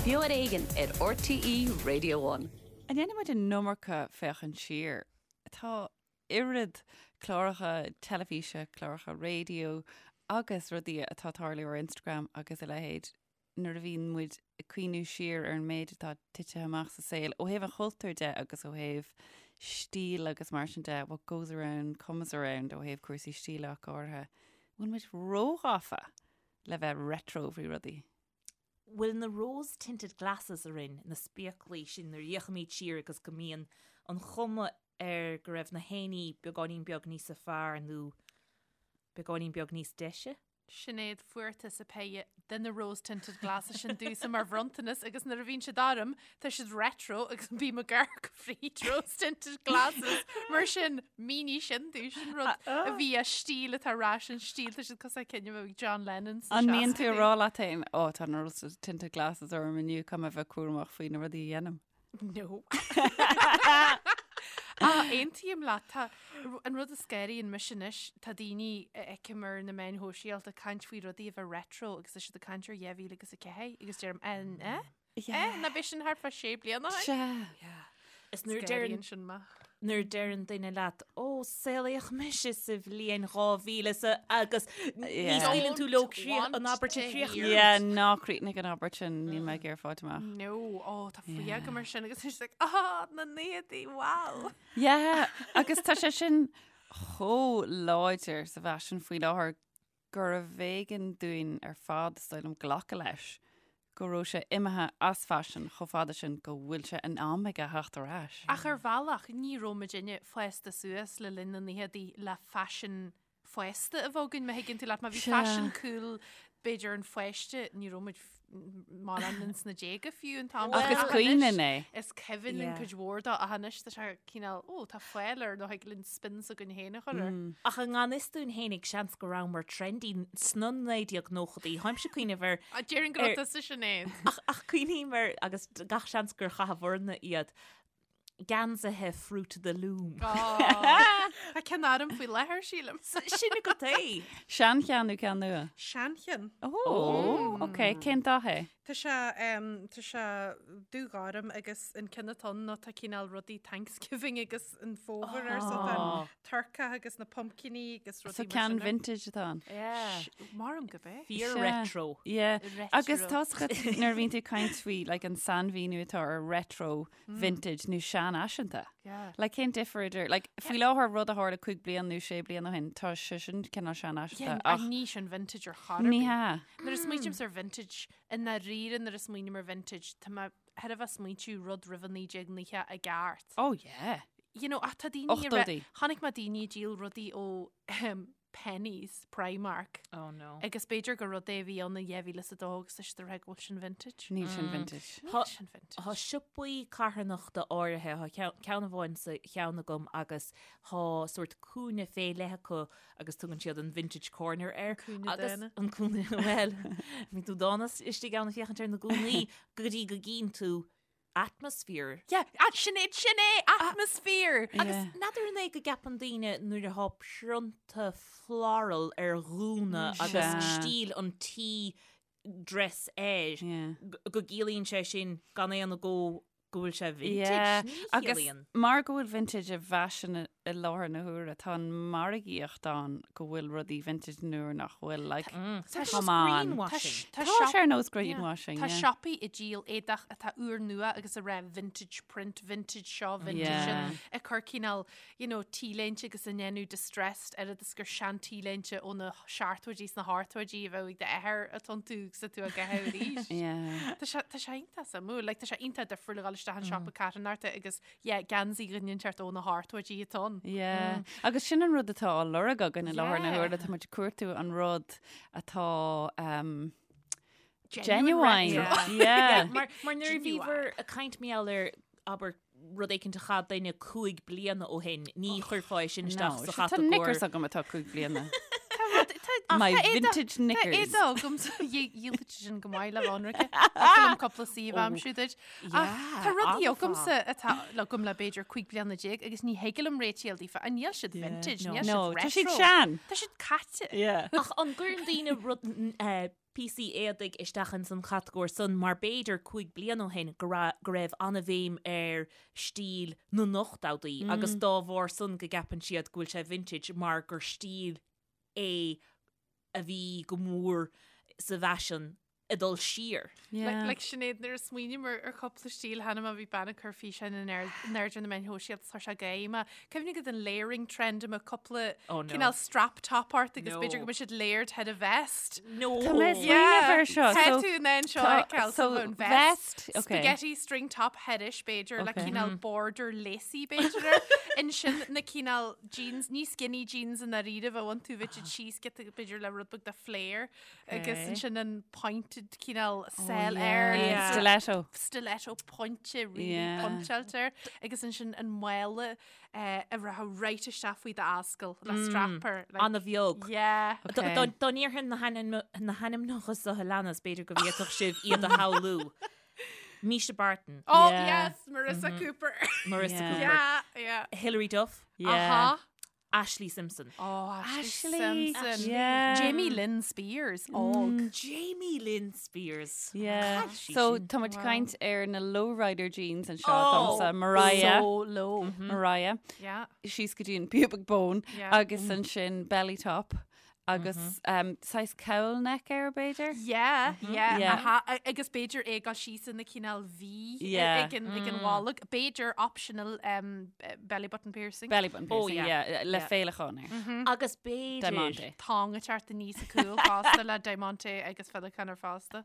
Beo ar Éigean ar RTÉ Radio One. An ndéanann muid an iomarca féachaint siar? Tá oiread cláracha teilifíse, cláracha raidió agus rudaí atá ag tarlú ar Instagram agus a leithéid nuair a bhíonn muid ag cuimhniú siar ar an méid atá tite amach sa saol ó thaobh an chultúir de agus ó thaobh stíl agus mar sin de, what goes around comes around ó thaobh cúrsaí stíle ach go háirithe. Bhfuil muid róghafa le bheith retro faoi rudaí? Bhfuil na rose tinted glasses orainn, na spéaclaí sin nuair a fhéachaimid siar agus go mbíonn an chuma air go raibh na héinní beagáinín beag níosa fearr nó beagáinín beag níos deise? Sinéad, fuair tusa péire de na rose tinted glasses sin domhsa mar bhronntanas agus nuair a bhíonn siad orm, tá siad retro agus bím ag amharc fríd rose tinted glasses mar sin mínigh sin domh sin rud a bhí as stíl atá ar ais an stíl tá siad cosúil le cinn a bheadh ag John Lennon An mbíonn tú ag rá leat féin ó tá na rose tinted glasses orm inniu caithfidh mé bheith cúramach faoi na rudaí a dhéanaim? No. Ach aontaím leat tá an rud a scanraíonn mise anois tá daoine a fheicim ar na meáin shóisialta ag caint faoi rudaí a bheith retro agus tá siad ag caint ar 2004 agus deirim an eh? Eh, ná b'é sin thart fá sé bliana ó shin? Sea. Is nuair a deireann sin mé. Nuair a deireann duine leat, ó, saolaíodh mise sa bhliain 2000 sa agus ní scaoileann tú leo an abairt a chríochnú. Yeah, ná críochnaigh an abairt sin, níl mé ag iarraidh fáilt amach. No, ó, tá fuath agam air sin agus is like, ah, na naochaidí, wow. Yeah, agus tá sé sin chomh láidir sa bhfaisean faoi láthair gurbh éigean dúinn ar fad, is dóigh liom, glacadh leis go raibh sé imithe as faisean chomh fada sin go bhfuil sé in am aige theacht ar ais. Ach ar bhealach, ní raibh muidinne fásta suas le linn na naochadaí le faisean fásta a bheith againn, má thuigeann tú leat. Má bhí faisean cool, b'fhéidir an pháiste, ní raibh muid mórán ins na déaga fiú an t-am Ach is cuimhin linn é. Is cuimhin linn cuid mhór dó ach anois tá sé cineál, ó, tá fáil air nó thig linn spin s'againn féin a chur air. Ach i ngan fhios dúinn fhéinig seans go rabhamar trendy sna 1990idí. Tháimse ag cuimhneamh ar. Déarfainn go raibh tusa Sinéad. Ach, ach cuimhním ar, agus gach seans gur chaitheabharna iad, geansaithe Fruit of the Loom. Tá ceann orm faoi láthair, sílim. Sin agat é. Seancheann nó ceann nua? Seancheann. Ó, ok. Cén dath é? Tá sé, tá sé dúghorm agus an ceann atá ann ná tá cineál rudaí Thanksgiving agus an fómhar air so tá an turcach agus na pumpkiní agus rudaí mar sin. So ceann vintage atá ann. Yeah. Maram go bé. Fíor retro. Yeah. Agus tá nuair a bhíonn tú ag caint faoi like an sainmhíniú atá ar retro vintage nó seanfhaiseanta. Yeah. Like cén difear idir, like faoi láthair rud a tharla 5 bliana nó 6 bliana ó shin, tá sé sin cineál seanfhaiseanta Yeah, ach ní sin vintage ar chor ar ní bith. hea. Nuair a smaoitímse ar vintage, i ndáiríre nuair a smaoiním ar vintage, tá mé thar a bheith smaointiú rud roimh an 1990 i gceart. Oh yeah. You know, ach tá daoine a Ochtóidí. Chonaic mé daoine ag díol rudaí ó Penneys, Primark. Oh no. Agus b'fhéidir gur rud é a bhí ann in 2002 agus tá siad ag rá go bhfuil sin vintage. Níl sin vintage. Níl sin vintage. Tá siopaí carthanachta áirithe, tá ceann amháin sa cheann agam agus tá sórt cúinne fé leith acu agus tugann siad an vintage corner air. Cúinne Agus dána. an cúinne, bhuel, bíonn tú dána istigh ann ag féachaint ar na gúnaí go dtí go gcíonn tú atmosphere. Yeah, sin é, sin é, atmosphere! Agus n'fheadar an é go gceapann daoine nuair atá prionta floral ar ghúna agus stíl an tea dress air go gciallaíonn sé sin gan aon agó go bhfuil sé vintage. Ní Agus chiallaíonn. mar go bhfuil vintage i bhfaisean i láthair na huaire, tá an margaíocht ann go bhfuil rudaí vintage nuair nach bhfuil, like, Tá come on. greenwashing. Tá sé ar nós greenwashing, Tá yeah. siopaí ag díol éadach atá úrnua agus ag rá vintage print, vintage seo, vintage Yeah. sin, ag cur cineál, you know, T-léinte agus a ndéanamh distressed oiread is gur sean T-léinte ó na seachtóidí is na hochtóidí a bheadh ag d'athair atá iontu agus tú á gcaitheamh arís. Yeah. Tá sé tá sé iontach suimiúil, like, tá sé iontach difriúil a dhul isteach in siopa carthanachta agus yeah, geansaí dhuine inteacht ó na hochtóidí atá ann. Yeah. Agus sin an rud atá á lorg againn i láthair na Yeah. huaire, tá muid ag cuartú an rud atá um, Genuine genuine. retro. Yeah. Mar, mar nuair a Genuine. bhíobhair ag caint mar gheall ar abair rud éicint a chaith duine 5 bliana ó shin, ní chuirfeá é sin isteach No, sa tá chatagóir. knickers agam atá 5 bliana. Tá My éadach- vintage Tá knickers. éadach agam dhíolfadh sin go maith le ionraice. Tá cúpla suíomh aimsiú duit. Ach tá rudaí agamsa atá agam le b'fhéidir 15 bliana agus ní thig liom réiteáil daofa. An níl siad vintage, níl No, siad tá siad retro. sean. Tá siad caite. Yeah. Ach an gcuireann daoine rud eh, píosaí éadaigh isteach ins an chatagóir san mar b'fhéidir 5 bliana ó shin go raibh go raibh an-bhéim ar stíl na n-ochtóidí agus dá bharr san go gceapann siad go bhfuil sé vintage mar gur stíl é a bhí go mór sa bhfaisean ag dul siar. Yeah. Like Sinéad, nuair a smaoiním ar ar chúpla stíl cheana má bhí bean ag cur físeáin in airde ar na meáin shóisialta tá sé géime. Cuimhnigh go den layering trend a mbeadh cúpla Oh no. cineál strap top ort agus No. b'fhéidir go mbeadh siad layered thar a vest. No. Tá mé ag smaoineamh air seo. Tá So, tú in ann seo tá- a fheiceáil so so an vest. vest, okay. Spaghetti string top thairis b'fhéidir le Okay. cineál border lacy b'fhéidir air. Ansin na cineál jeans, ní skinny jeans i ndáiríribh a bhain tú bheith siad síos giota b'fhéidir le rud beag de flare. Agus ansin an pointed cineál sell air. Yeah. Stiletto. Stiletto pointe really Yeah. pointeáilte air. Agus ansin an mála eh, a rachadh right isteach faoi d'ascaill le strap air. like- An-bheag. Yeah. Okay. Dá dá ndéarfainn na hainm- na hainmneacha seo a leanas, b'fhéidir go bhféadfadh sibh iad a shamhlú. Misha Barton, Oh Yeah. yes, Marissa Cooper. Marissa Yeah. Cooper, yeah, yeah. Hilary Duff, Yeah. Uh-huh. Ashlee Simpson. Oh, Ashlee, Ashlee. Simpson. Yeah. Jamie Lynn Spears. Og. Jamie Lynn Spears. Yeah. Cad sí So sin? tá muid ag caint ar na lowrider jeans anseo Oh, domsa Mariah. So low. Mariah. Yeah. Síos go dtí an pubic bone Yeah. agus ansin belly top agus um, saghas cowl neck air b'fhéidir. Yeah, yeah, Yeah. aha. A- Agus b'fhéidir é go síos ina cineál V Yeah. ag an ag an bholg. B'fhéidir optional um, belly button piercing. Belly button Oh, piercing, yeah. yeah, le Yeah. féileacán air. Agus b'fhéidir Diamante. Tong ag teacht aníos a cúl fosta le diamante agus féileacán air fosta.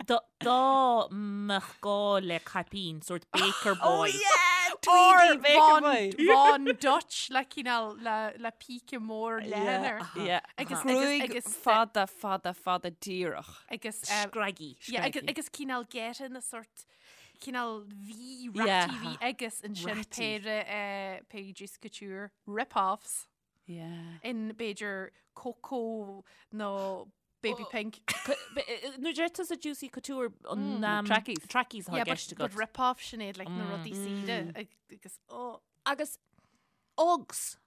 Dá dá mbeadh gá le caipín, sort baker boy. Oh yeah, Tweedy Baker Boy. Von Dutch le cineál le le píce mór leathan air. Yeah. Agus- agus- Gruaig agus- fada, fada, fada díreach. Agus um, Scraggy. yeah, agus, Scraggy. agus cineál geata na sort cineál V Yeah. ratty V agus ansin Ratty. péire eh, péire Juicy Couture rip-offs. Yeah. in b'fhéidir cocoa nó baby pink. Nuair a deir tusa Juicy Couture an um, Trackies. Trackies atá Yeah, i gceist but, but agat. rip-off Sinéad, like na rudaí saoire agus oh, Agus Uggs.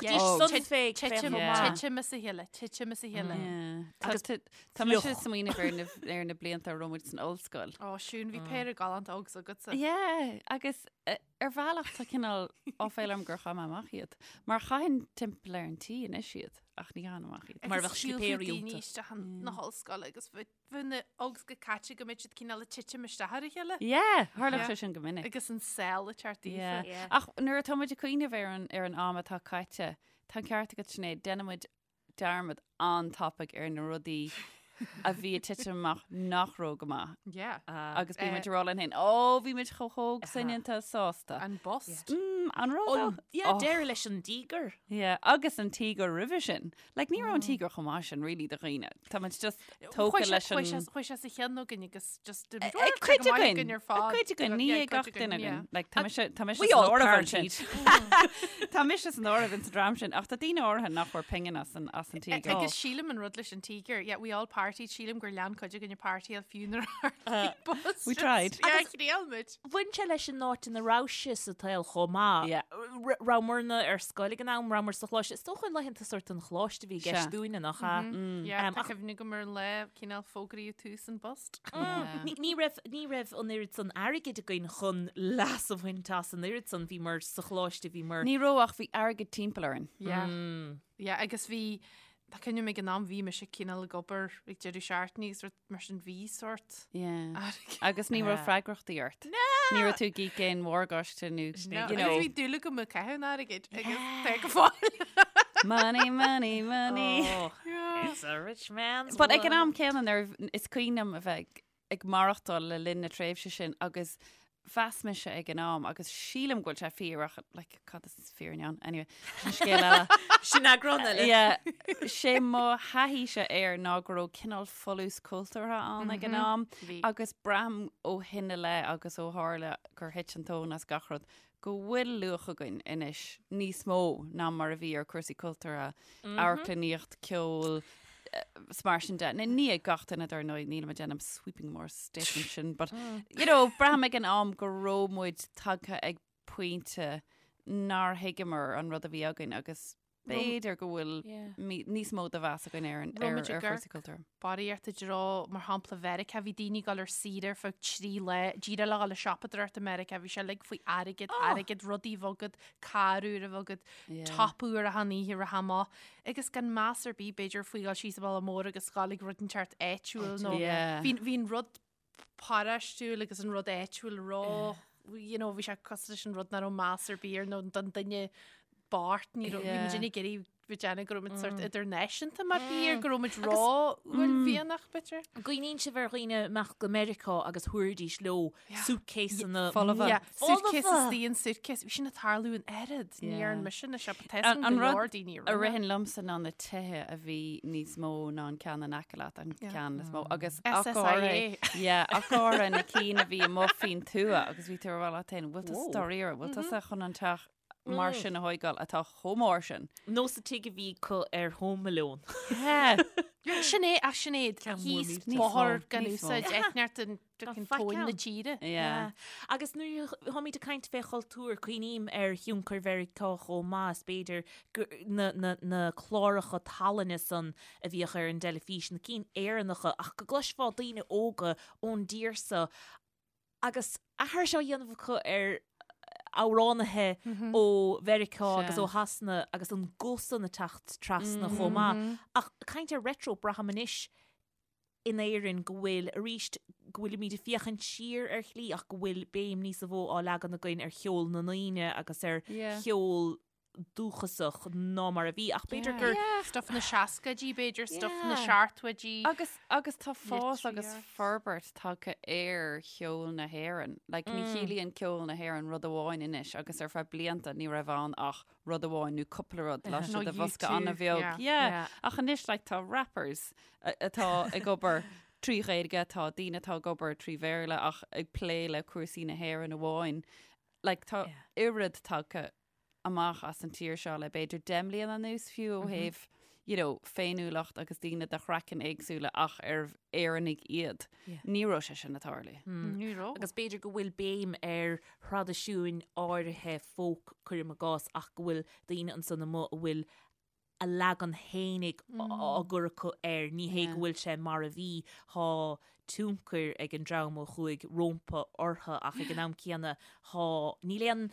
Yeah. Dtugtaidís Uggs. san fé titim Yeah. titim as a chéile, titim as a chéile. Yeah. Tá Agus tá- tá mise fliuch. ag smaoineamh ar na ar na blianta a raibh muid san ollscoil. Ó, Siún, bhí péire galánta Uggs agatsa. Yeah, agus eh, ar bhealach tá cineál áiféala orm gur chaith mé amach iad. Mar chaithfinn timpeall ar an tí anois iad, ach ní chaithfinn amach iad. Mar Agus bheadh shiúlfadh slipéirí daoine iontu. isteach na hollscoile agus bheadh bheadh na Uggs go caite go mbeadh siad cineál ag titim isteach ar a chéile. Yeah, tharlódh Yeah. sé sin go minic. Agus an sell ag teacht daofa. Yeah. Yeah. Ach nuair atá muid ag cuimhneamh ar an, ar an am atá caite, tá an ceart agat Sinéad, déanann muid dearmad an-tapaidh ar na rudaí a bhí ag titim amach nach raibh go maith. Yeah. Agus bíonn Eh. muid ag rá linn féin, ó, bhí muid chomh hóg soineanta sásta. An bust. Mm, an raibh An, yeah, Oh. deireadh leis an tíogar. Yeah, agus an tíogar roimhe sin. Like, ní raibh an tíogar chomh maith sin, really, do dhaoine. Tá muid just tógtha leis an... Chuaigh sé sa cheann againn agus just Ag cuid againn, ar fad. ag cuid againn, ní ag gach duine againn. Like, tá mise tá mise We san all áireamh ansin. partied. Tá mise san áireamh ins an dream sin, ach tá daoine áirithe nach bhfuair pingin as an as an tíogar. Agus sílim an rud leis an tíogar, yeah, we all partied, sílim gur lean cuid againn ag partyáil fiú nuair a tharla bust. We tried. Yeah, thriail muid. Bhain sé leis an áit ina raibh sé sa tsaol chomh maith. Yeah. R- Rabhamar ar scoil ag an am, rabhamar sa choláiste. Is dócha laethanta sort an choláiste a bhí i gceist Sea. dúinne, nach ea? Yeah, Um, tá ach- cuimhne agam ar an lá cineál fógraíodh tús an bust. Yeah. Ní ní raibh ní raibh an oiread san airgid againn chun leas a bhaint as an oiread san bhíomar sa choláiste bhíomar. Ní raibh ach bhí airgead timpeall orainn. Yeah. Yeah, agus bhí tá cuimhne ag an am bhí mise cineál ag obair ag deireadh seachtaine agus rud mar sin bhí sort Yeah. airgead. Agus ní raibh Yeah. freagrachtaí ort. Ní raibh tú ag íoc aon mhorgáiste nó, No, you agus know, bhí dúil agam ag caitheamh an airgid agus tá go fóill. money, money, money. Oh, it's a rich man's But ag an world. am céanna nuair is cuimhin liom a bheith ag, ag maireachtáil le linn na tréimhse sin agus mheas mise ag an am agus sílim go bhfuil sé fíor ach like, cad is fírinne ann anyway sin scéal eile. Sin eagrán eile. Yeah, sé mo thaithíse air ná go raibh cineál folús cultúrtha ann ag an am Bhí. agus braithim ó shin i leith agus ó tharla gur thit an tóin as gach rud go bhfuil luach againn anois níos mó ná mar a bhí ar cúrsaí cultúrtha, amharclannaíocht, ceol, 's mar sin de. Ní ní ag gach duine dar ndóigh, nílim ag déanamh sweeping mór statement sin, but you know, braithim ag an am go raibh muid tagtha ag pointe nár thuigeamar an rud a bhí againn agus B'fhéidir go bhfuil níos mó de mheas againn ar an ar ar chúrsaí cultúir. Barraíocht i dtreo, mar shampla, Mheiriceá, bhí daoine ag dul ar saoire ar feadh 3 lá, díreach le dhul ag siopadóireacht i Meiriceá, bhí sé uilig faoi airgead, airgead, rudaí a bheith agat, carr úr a bheith agat, top úr achan oíche a rith amach, agus gan meas ar bith b'fhéidir faoi dhul síos an bealach mór agus dhul ag rud inteacht áitiúil nó bhí an rud paráistiúil agus an rud áitiúil ró, you know, bhí sé cosúil leis an rud nach raibh meas ar bith air nó don duine bocht, ní raibh, bhí muid ag iarraidh bheith ag déanamh go raibh muid sort idirnáisiúnta mar thír, go raibh muid ró-uaillmhianach, b'fhéidir. Cuimhníonn sibh ar dhaoine ag imeacht go Meiriceá agus thabharfaidís leo suitcaseanna folmha. Yeah, suitcase is the an suitcase. Bhí sin ag tarlú an oiread, ní dhearn mise na siopa, tá a fhios agam go leor daoine a rinne. A ritheann liomsa ná na tithe a bhí níos mó ná an ceann in aice leat, an ceann is mó. Agus SSIA. Yeah, ach go háirithe na cinn a bhí amuigh faoin tuath agus bhí tú ag rá leat féin, bhfuil tusa dáiríre, bhfuil tusa chun an teach mar sin a thóigeáil atá chomh mór sin? Nó sa tigh a bhí acu ar Home Alone. Sin é, ach sin é, thíos bóthar gan úsáid, eitneart an tóin na tíre. Yeah. Agus nuair a tháimid ag caint fé chultúr, cuimhním ar thionchar Mheiriceá chomh maith, is b'fhéidir na, na, na cláracha tallainne san a bhíodh ar an dteilifís, na cinn Éireannacha, ach go gcloisfeá daoine óga ón dtír so agus aithris á dhéanamh acu ar amhránaithe ó Mheiriceá agus ó Shasana agus an guth san ag teacht trasna chomh maith. Ach caint ar retro, braithim anois in Éirinn go bhfuil, arís, go bhfuilimid ag féachaint siar ar shlí ach go bhfuil béim níosa mhó á leagan againn ar cheol na ndaoine agus ar cheol dúchasach ná mar a bhí ach b'fhéidir gur. Stuff na seascaidí b'fhéidir, stuff na seachtóidí. Agus, agus tá fás agus forbairt tagtha ar cheol na hÉireann. Like, ní chiallaíonn ceol na hÉireann rud amháin anois agus ar feadh blianta ní raibh ann ach rud amháin nó cúpla rud laistigh de bhosca an-bheag. Yeah. Ach anois, like, tá rappers atá ag obair trí Ghaeilge, tá daoine atá ag obair trí Bhéarla ach ag plé le cúrsaí na hÉireann amháin. Like, tá oiread tagtha amach as an tír seo le b'fhéidir 10 mbliana anuas fiú ó thaobh you know, féiniúlacht agus daoine de chraiceann éagsúla ach ar Éireannaigh iad. Ní raibh sé sin ag tarlú. Ní raibh. Agus b'fhéidir go bhfuil béim ar thraidisiúin áirithe folk, cuirim i gcás, ach go bhfuil daoine ansan amuigh a bhfuil a leagan fhéinig á gcur acu air, ní hé go bhfuil sé mar a bhí, thá tionchar ag an dream a chuaigh rómpa orthu ach ag an am céanna thá, níl aon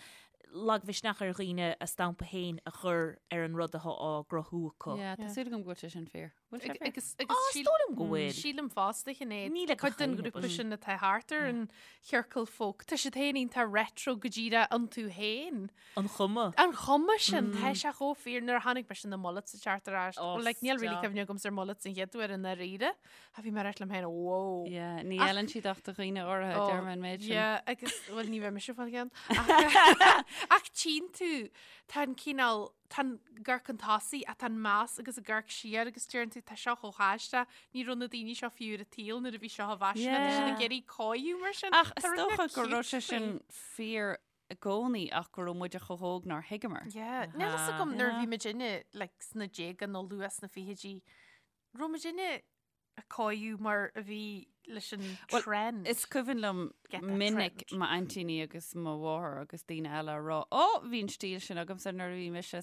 lagmhisneach ar dhaoine a stampa féin a chur ar an rud athá á gcruthú acu. Yeah, tá súil agam go bhfuil sé sin fíor. Bhfuil sé fíor? Agus, agus Is dóigh liom go bhfuil. Sílim fosta Sinéad, Níl ag cuid den gach éinne, ghrúpa but- sin atá thart ar an chiorcal folk, tá siad féin iontach retro go díreach iontu féin. An chuma. An chuma sin, tá sé chomh fíor nuair a chonaic mise na mullets ag teacht ar ais. Oh, Well, like, níl really stop. cuimhne agamsa ar mullets an chéad uair i ndáiríre. A bhí mé ag rá liom féin, wow. Yeah, ní fheileann siad ach do dhaoine áirithe, Oh, deir mé an méid sin. Yeah, agus, well, ní bheidh mise fáil ceann. Ach, ach tchíonn tú, tá an cineál, tá an amharc chun tosaigh, ach tá an meas agus an amharc siar agus deireann tú, tá seo chomh haisteach, ní raibh na daoine seo fiú ar an tsaol nuair a bhí seo i bhfaisean, tá siad ag iarraidh cóiriú mar sin. Ach is Tá rud dócha beag go raibh cute sé sin faoi. fíor i gcónaí ach go raibh muide chomh hóg nár thuigeamar. Yeah, níl fhios agam nuair a bhí muidinne like, sna déaga nó luath sna fichidí, raibh muidinne ag cóiriú mar a bhí leis an Well, trend. Is cuimhin liom Get that minic trend. m'aintíní agus mo mháthair agus daoine eile a rá, Ó, bhí an stíl sin agamsa nuair a bhí mise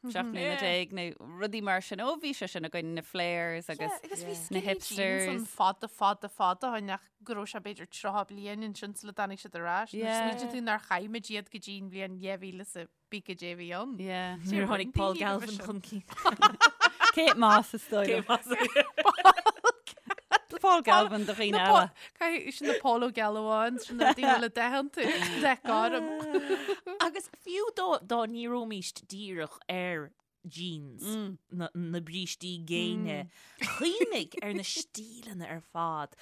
17 mbliana nó rudaí mar sin. Ó, bhí sé sin againn na flares agus Yeah, agus bhí na skinny jeans hipsters. an fada fada fada ó shin ach go raibh sé b'fhéidir 30 bliain ansin sula dtáinig siad ar ais. Nuair Yeah. smaoitíonn tú nár chaith muid iad go dtí an bhliain 2000 is a bí go dé bhí ann. Yeah. Nuair a tháinig Paul Daoine roimhe Galvin sin. chun cinn. Kate Moss is dóigh liom. Paul Galvin do dhaoine eile. Caithfidh sin na Paul Ó Gealbháin, sin na daoine le deich tú, deich gorm. Agus fiú dá dá ndíreoimíst díreach ar jeans, na, na brístí géine, cuimhnigh ar na stíleanna ar fad,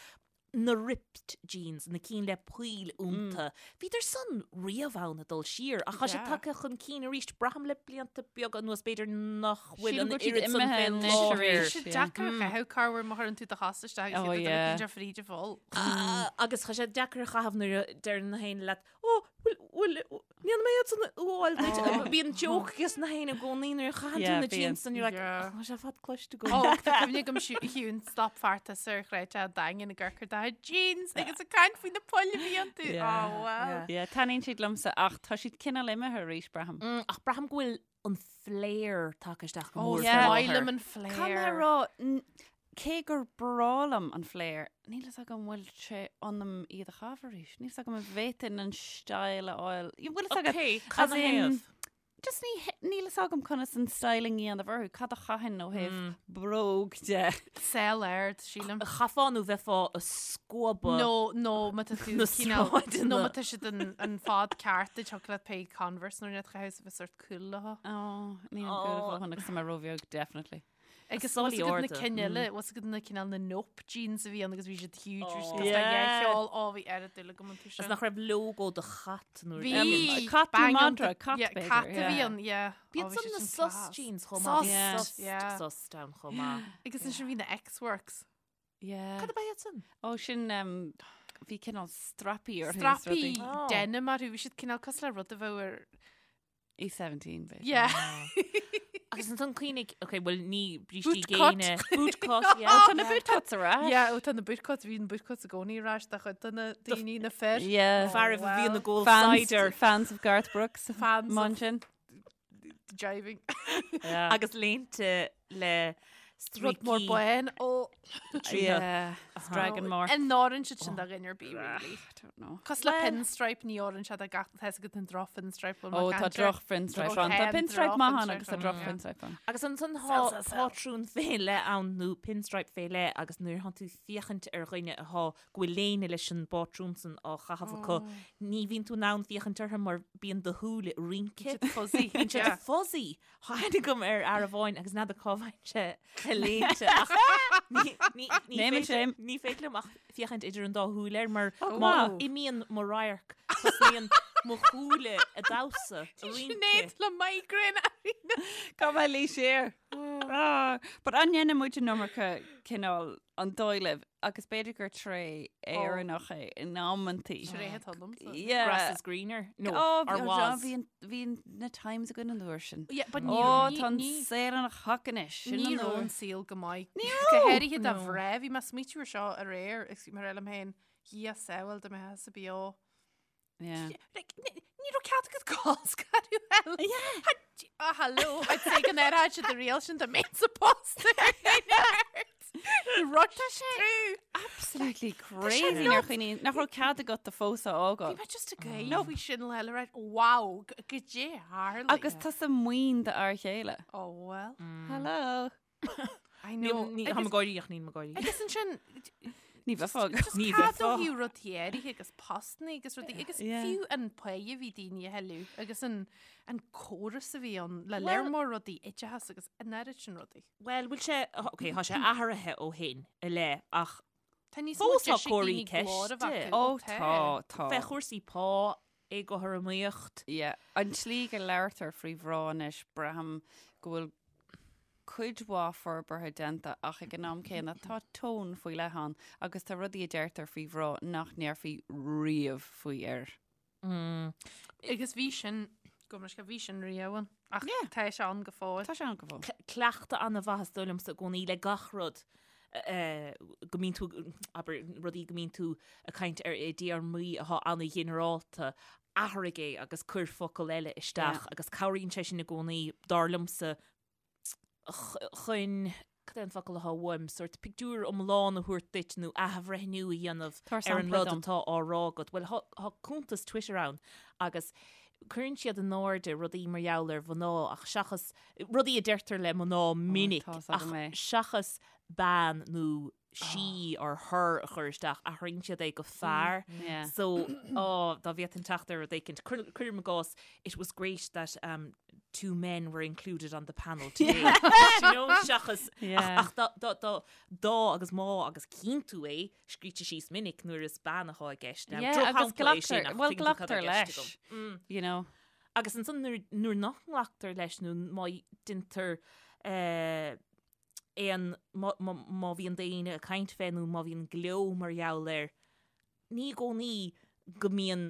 na ripped jeans, na cinn le poill iontu. Bhíodar san riamh ann ag dul siar, ach tá sé Yeah. tagtha chun cinn arís. Braithim le blianta beaga anuas, b'fhéidir nach bhfuil Sílim an go bhfuil siad oiread san imithe fé anois láthair. arís. Tá sé deacair a chaitheamh corruair má chuireann tú do chos isteach Oh, agus yeah. iad a fríd a pholl. Ah, agus tá sé deacair a chaitheamh nuair a deireann na héinne leat, Ó, bhfuil, bhfuil, Níl mé iad san fháil duit. Bíonn joke ages na héinne i gcónaí nuair a chaitheann tú Yeah, na bíonn. jeans and you're like, Yeah. "Oh, tá sé fad cloiste agam. Ó, tá cuimhne agam Shiún stop feartas ar chreid a daingean i gcorcair do jeans agus ag caint faoi na poill a bhí iontu. Yeah. Oh, well. Yeah, taitníonn siad liomsa ach tá siad cineál imithe arís, braithim. Mm, Ach braithim go bhfuil an flare tagtha isteach go Ó, mór is Yeah. faoi maith láthair. liom an flare. Caithfidh mé a rá, n- cé gur breá liom an flare, níl fhios agam bhfuil sé ionam iad a chaitheamh arís. Níl fhios agam an bhféadfainn an style a fháil. Bhfuil fhios agat, Ok, cad as na in- thaobh? Just ní, níl fhios agam conas an styling a dhéanamh orthu, cad a chaithfinn ó thaobh Mm. bróg de. Sell ard, sílim. Chaithfeá nó bheifeá ag scuabadh. No, nó má tá tú Na cineál- sráideanna. nó má tá siad an, an fad ceart duit thiocfadh leat pé Converse nó rud a chaitheamh a bheith sort cool leo. Oh, níl an Oh. cool fáhan agus tá mé róbheag, definitely. Agus Sálaí bhfuil fhios agat na arda. cinn eile, bhfuil fhios agat na cineál na nope jeans a bhí ann agus bhí siad huge, bhí siad Oh. cosúil le Yeah. cheol, ó bhí oiread dúil agam iontu Is sin. nach raibh logo de chat nó Bhí Um, cat nó bang madra, iontu. cat Yeah, b'fhéidir, cat a bhí yeah. ann, yeah. Ó, Bíonn bhí san siad na sin sus class. jeans chomh Sus, maith. Yeah. Sus, yeah. sus down chomh maith. Agus ansin bhí na X-Works. Yeah. Cad ab ea iad san? Ó, sin um, bhí cineál strapaí orthu is Strapaí rudaí. Oh. denim orthu, bhí siad cineál cosúil le rud a bheadh ar E17, b'fhéidir. Yeah. Agus ansan cuimhnigh, ok, bhuel ní brístí Boot cut. géine. Boot cut, yeah. Ó, tá na boot cuts ar ais. Yeah, ó tá na boot cuts, bhí na boot cuts i gcónaí ar ais de chuid de na daoine na fir. Yeah. Fear a bhí ina gcól Fans, cider. fans of Garth Brooks. Fans of- Munchen. Jiving. Yeah. Agus léinte le Rud mór stríocaí. bán ó Yeah. Dragon more. An n-oireann siad sin do dhuine ar bith, really. I don't know. Cosúil le pinstripe ní oireann sé do gach tá fhios agat an droch pinstripe bhfuil Ó mé tá caint air. droch pinstripe Ó, ann. Tá tá pinstripe droch maith ann pinstripe agus tá ann, droch yeah. pinstripe ann. Agus ansan Sell, tá sell, sell. pátrún fé leith ann nó pinstripe fé leith agus nuair atá tú féachaint ar dhuine atá go bhfuil léine leis an bpátrún san á chaitheamh acu, ní bhíonn tú in ann féachaint orthu mar bíonn do shúile ag rince. Siad fuzzy. Bíonn siad Yeah. fuzzy. Tháinig agam ar fhear amháin agus n'fheadar cá bhfaigheann sé a léinte ach ní- ní- ní Name and féidir- shame. Ní féidir liom ach féachaint idir an dá shúil air mar Oh, má wow. imíonn mo radharc tosnaíonn mo shúile ag damhsa ag rince. Sinéad le migraine arís. Cá mbeidh lí siar. Ah, But an ndéanann muid an iomarca cineál an dóigh libh agus b'fhéidir gur tréith Éireannach é in amantaí. Tréith atá liomsa. Yeah. Grass is greener. No, Oh, or bhí was. bhí an- bhí na times againn an uair sin. Yeah, but ní Ó, ní- tá an ní- saol ina chac anois. Sin Ní an raibh uair. an saol go maith. Ní Go raibh. háirithe do No. mhná, bhí mé ag smaoitiú air seo aréir, agus bhí mé ag rá liom féin, Dhia sábháil dá mbeifeása beo. Yeah. Like, ní ní raibh cead agat colscaradh eile. Yeah. Ah, hello. I'd say go n-airfeadh siad an riail sin dá mbeinnse pósta ar Rush through. Absolutely crazy nuair a chuimhníonn nach raibh cead agat do phósadh a Bhí fhágáil. mé just ag gáire faoi sin le le Wow, goidé a tharla. Agus tusa maoin d'fhear chéile. Oh well. Hello. I know. Ní tá mé ag gáirí ach níl mé ag gáirí. Agus ansin Ní bheifeá ag. Just Ní cad ó bheifeá. thaobh rudaí áirithe agus postanna agus rudaí agus Yeah. fiú an pá a bhí daoine a thuilleamh agus an an córas a bhí ann le léir mór rudaí oideachas agus an oiread sin rudaí. Well, bhfuil sé, ok, tá sé athraithe ó shin i leith ach Tá níos mó Fós tá deis ag comharthaí daoine glór a bheith ceiste. acu. Ó tá, tá. fé chúrsaí pá, éagothromaíocht. Yeah. An tslí go labhartar faoi mhná anois braithim go bhfuil cuid mhaith forbartha déanta ach ag an am céanna tá tón faoi leith ann agus tá rudaí a deirtear faoi mhná nach ndéarfaí riamh faoi fhir. Agus bhí sin, go mbeidh sé, bhí sin riamh ann ach Yeah. tá sé ann go fóill. Tá sé ann go fóill. Cleachtadh an-mhaith is dóigh liomsa i gcónaí le gach rud go mbíonn tú, abair, rudaí go mbíonn tú ag caint ar i dtéarmaí atá an-ghinearálta, athraigh é agus cuir focal eile isteach agus cabhraíonn sé sin i gcónaí, dar liomsa, chun, cad é an focal atá uaim, sórt pictiúr iomlán a thabhairt duit nó athbhreithniú a dhéanamh Tabhair ar an sampla rud dom. atá á rá agat. Bhuel, tá cuntas Twitter ann agus cuireann siad in airde rudaí mar gheall ar mhná ach seachas, rudaí a deirtear le mná minic tá's ach agam é. seachas bean nó she or her a chur isteach, athraíonn siad é go fear. Yeah. So, oh, dá bhféadfainn teacht ar rud éicint. Cuir- Cuirim i gcás, it was great that um, two men were included on the panel today. Do you know, seachas, Yeah. ach, ach dá, dá, dá, dá agus má agus cíonn tú é, scríte síos minic nuair is bean atá i gceist. Now, Yeah, agus drochshampla é sin, glactar, ach well, tuigeann tú cad glactar i gceist leis, agam. Mm. you know. Agus ansan nuair, nuair nach nglactar leis nó má deintear eh, aon, má, má, má bhíonn daoine ag caint fé nó má bhíonn gleo mar gheall air, ní i gcónaí go mbíonn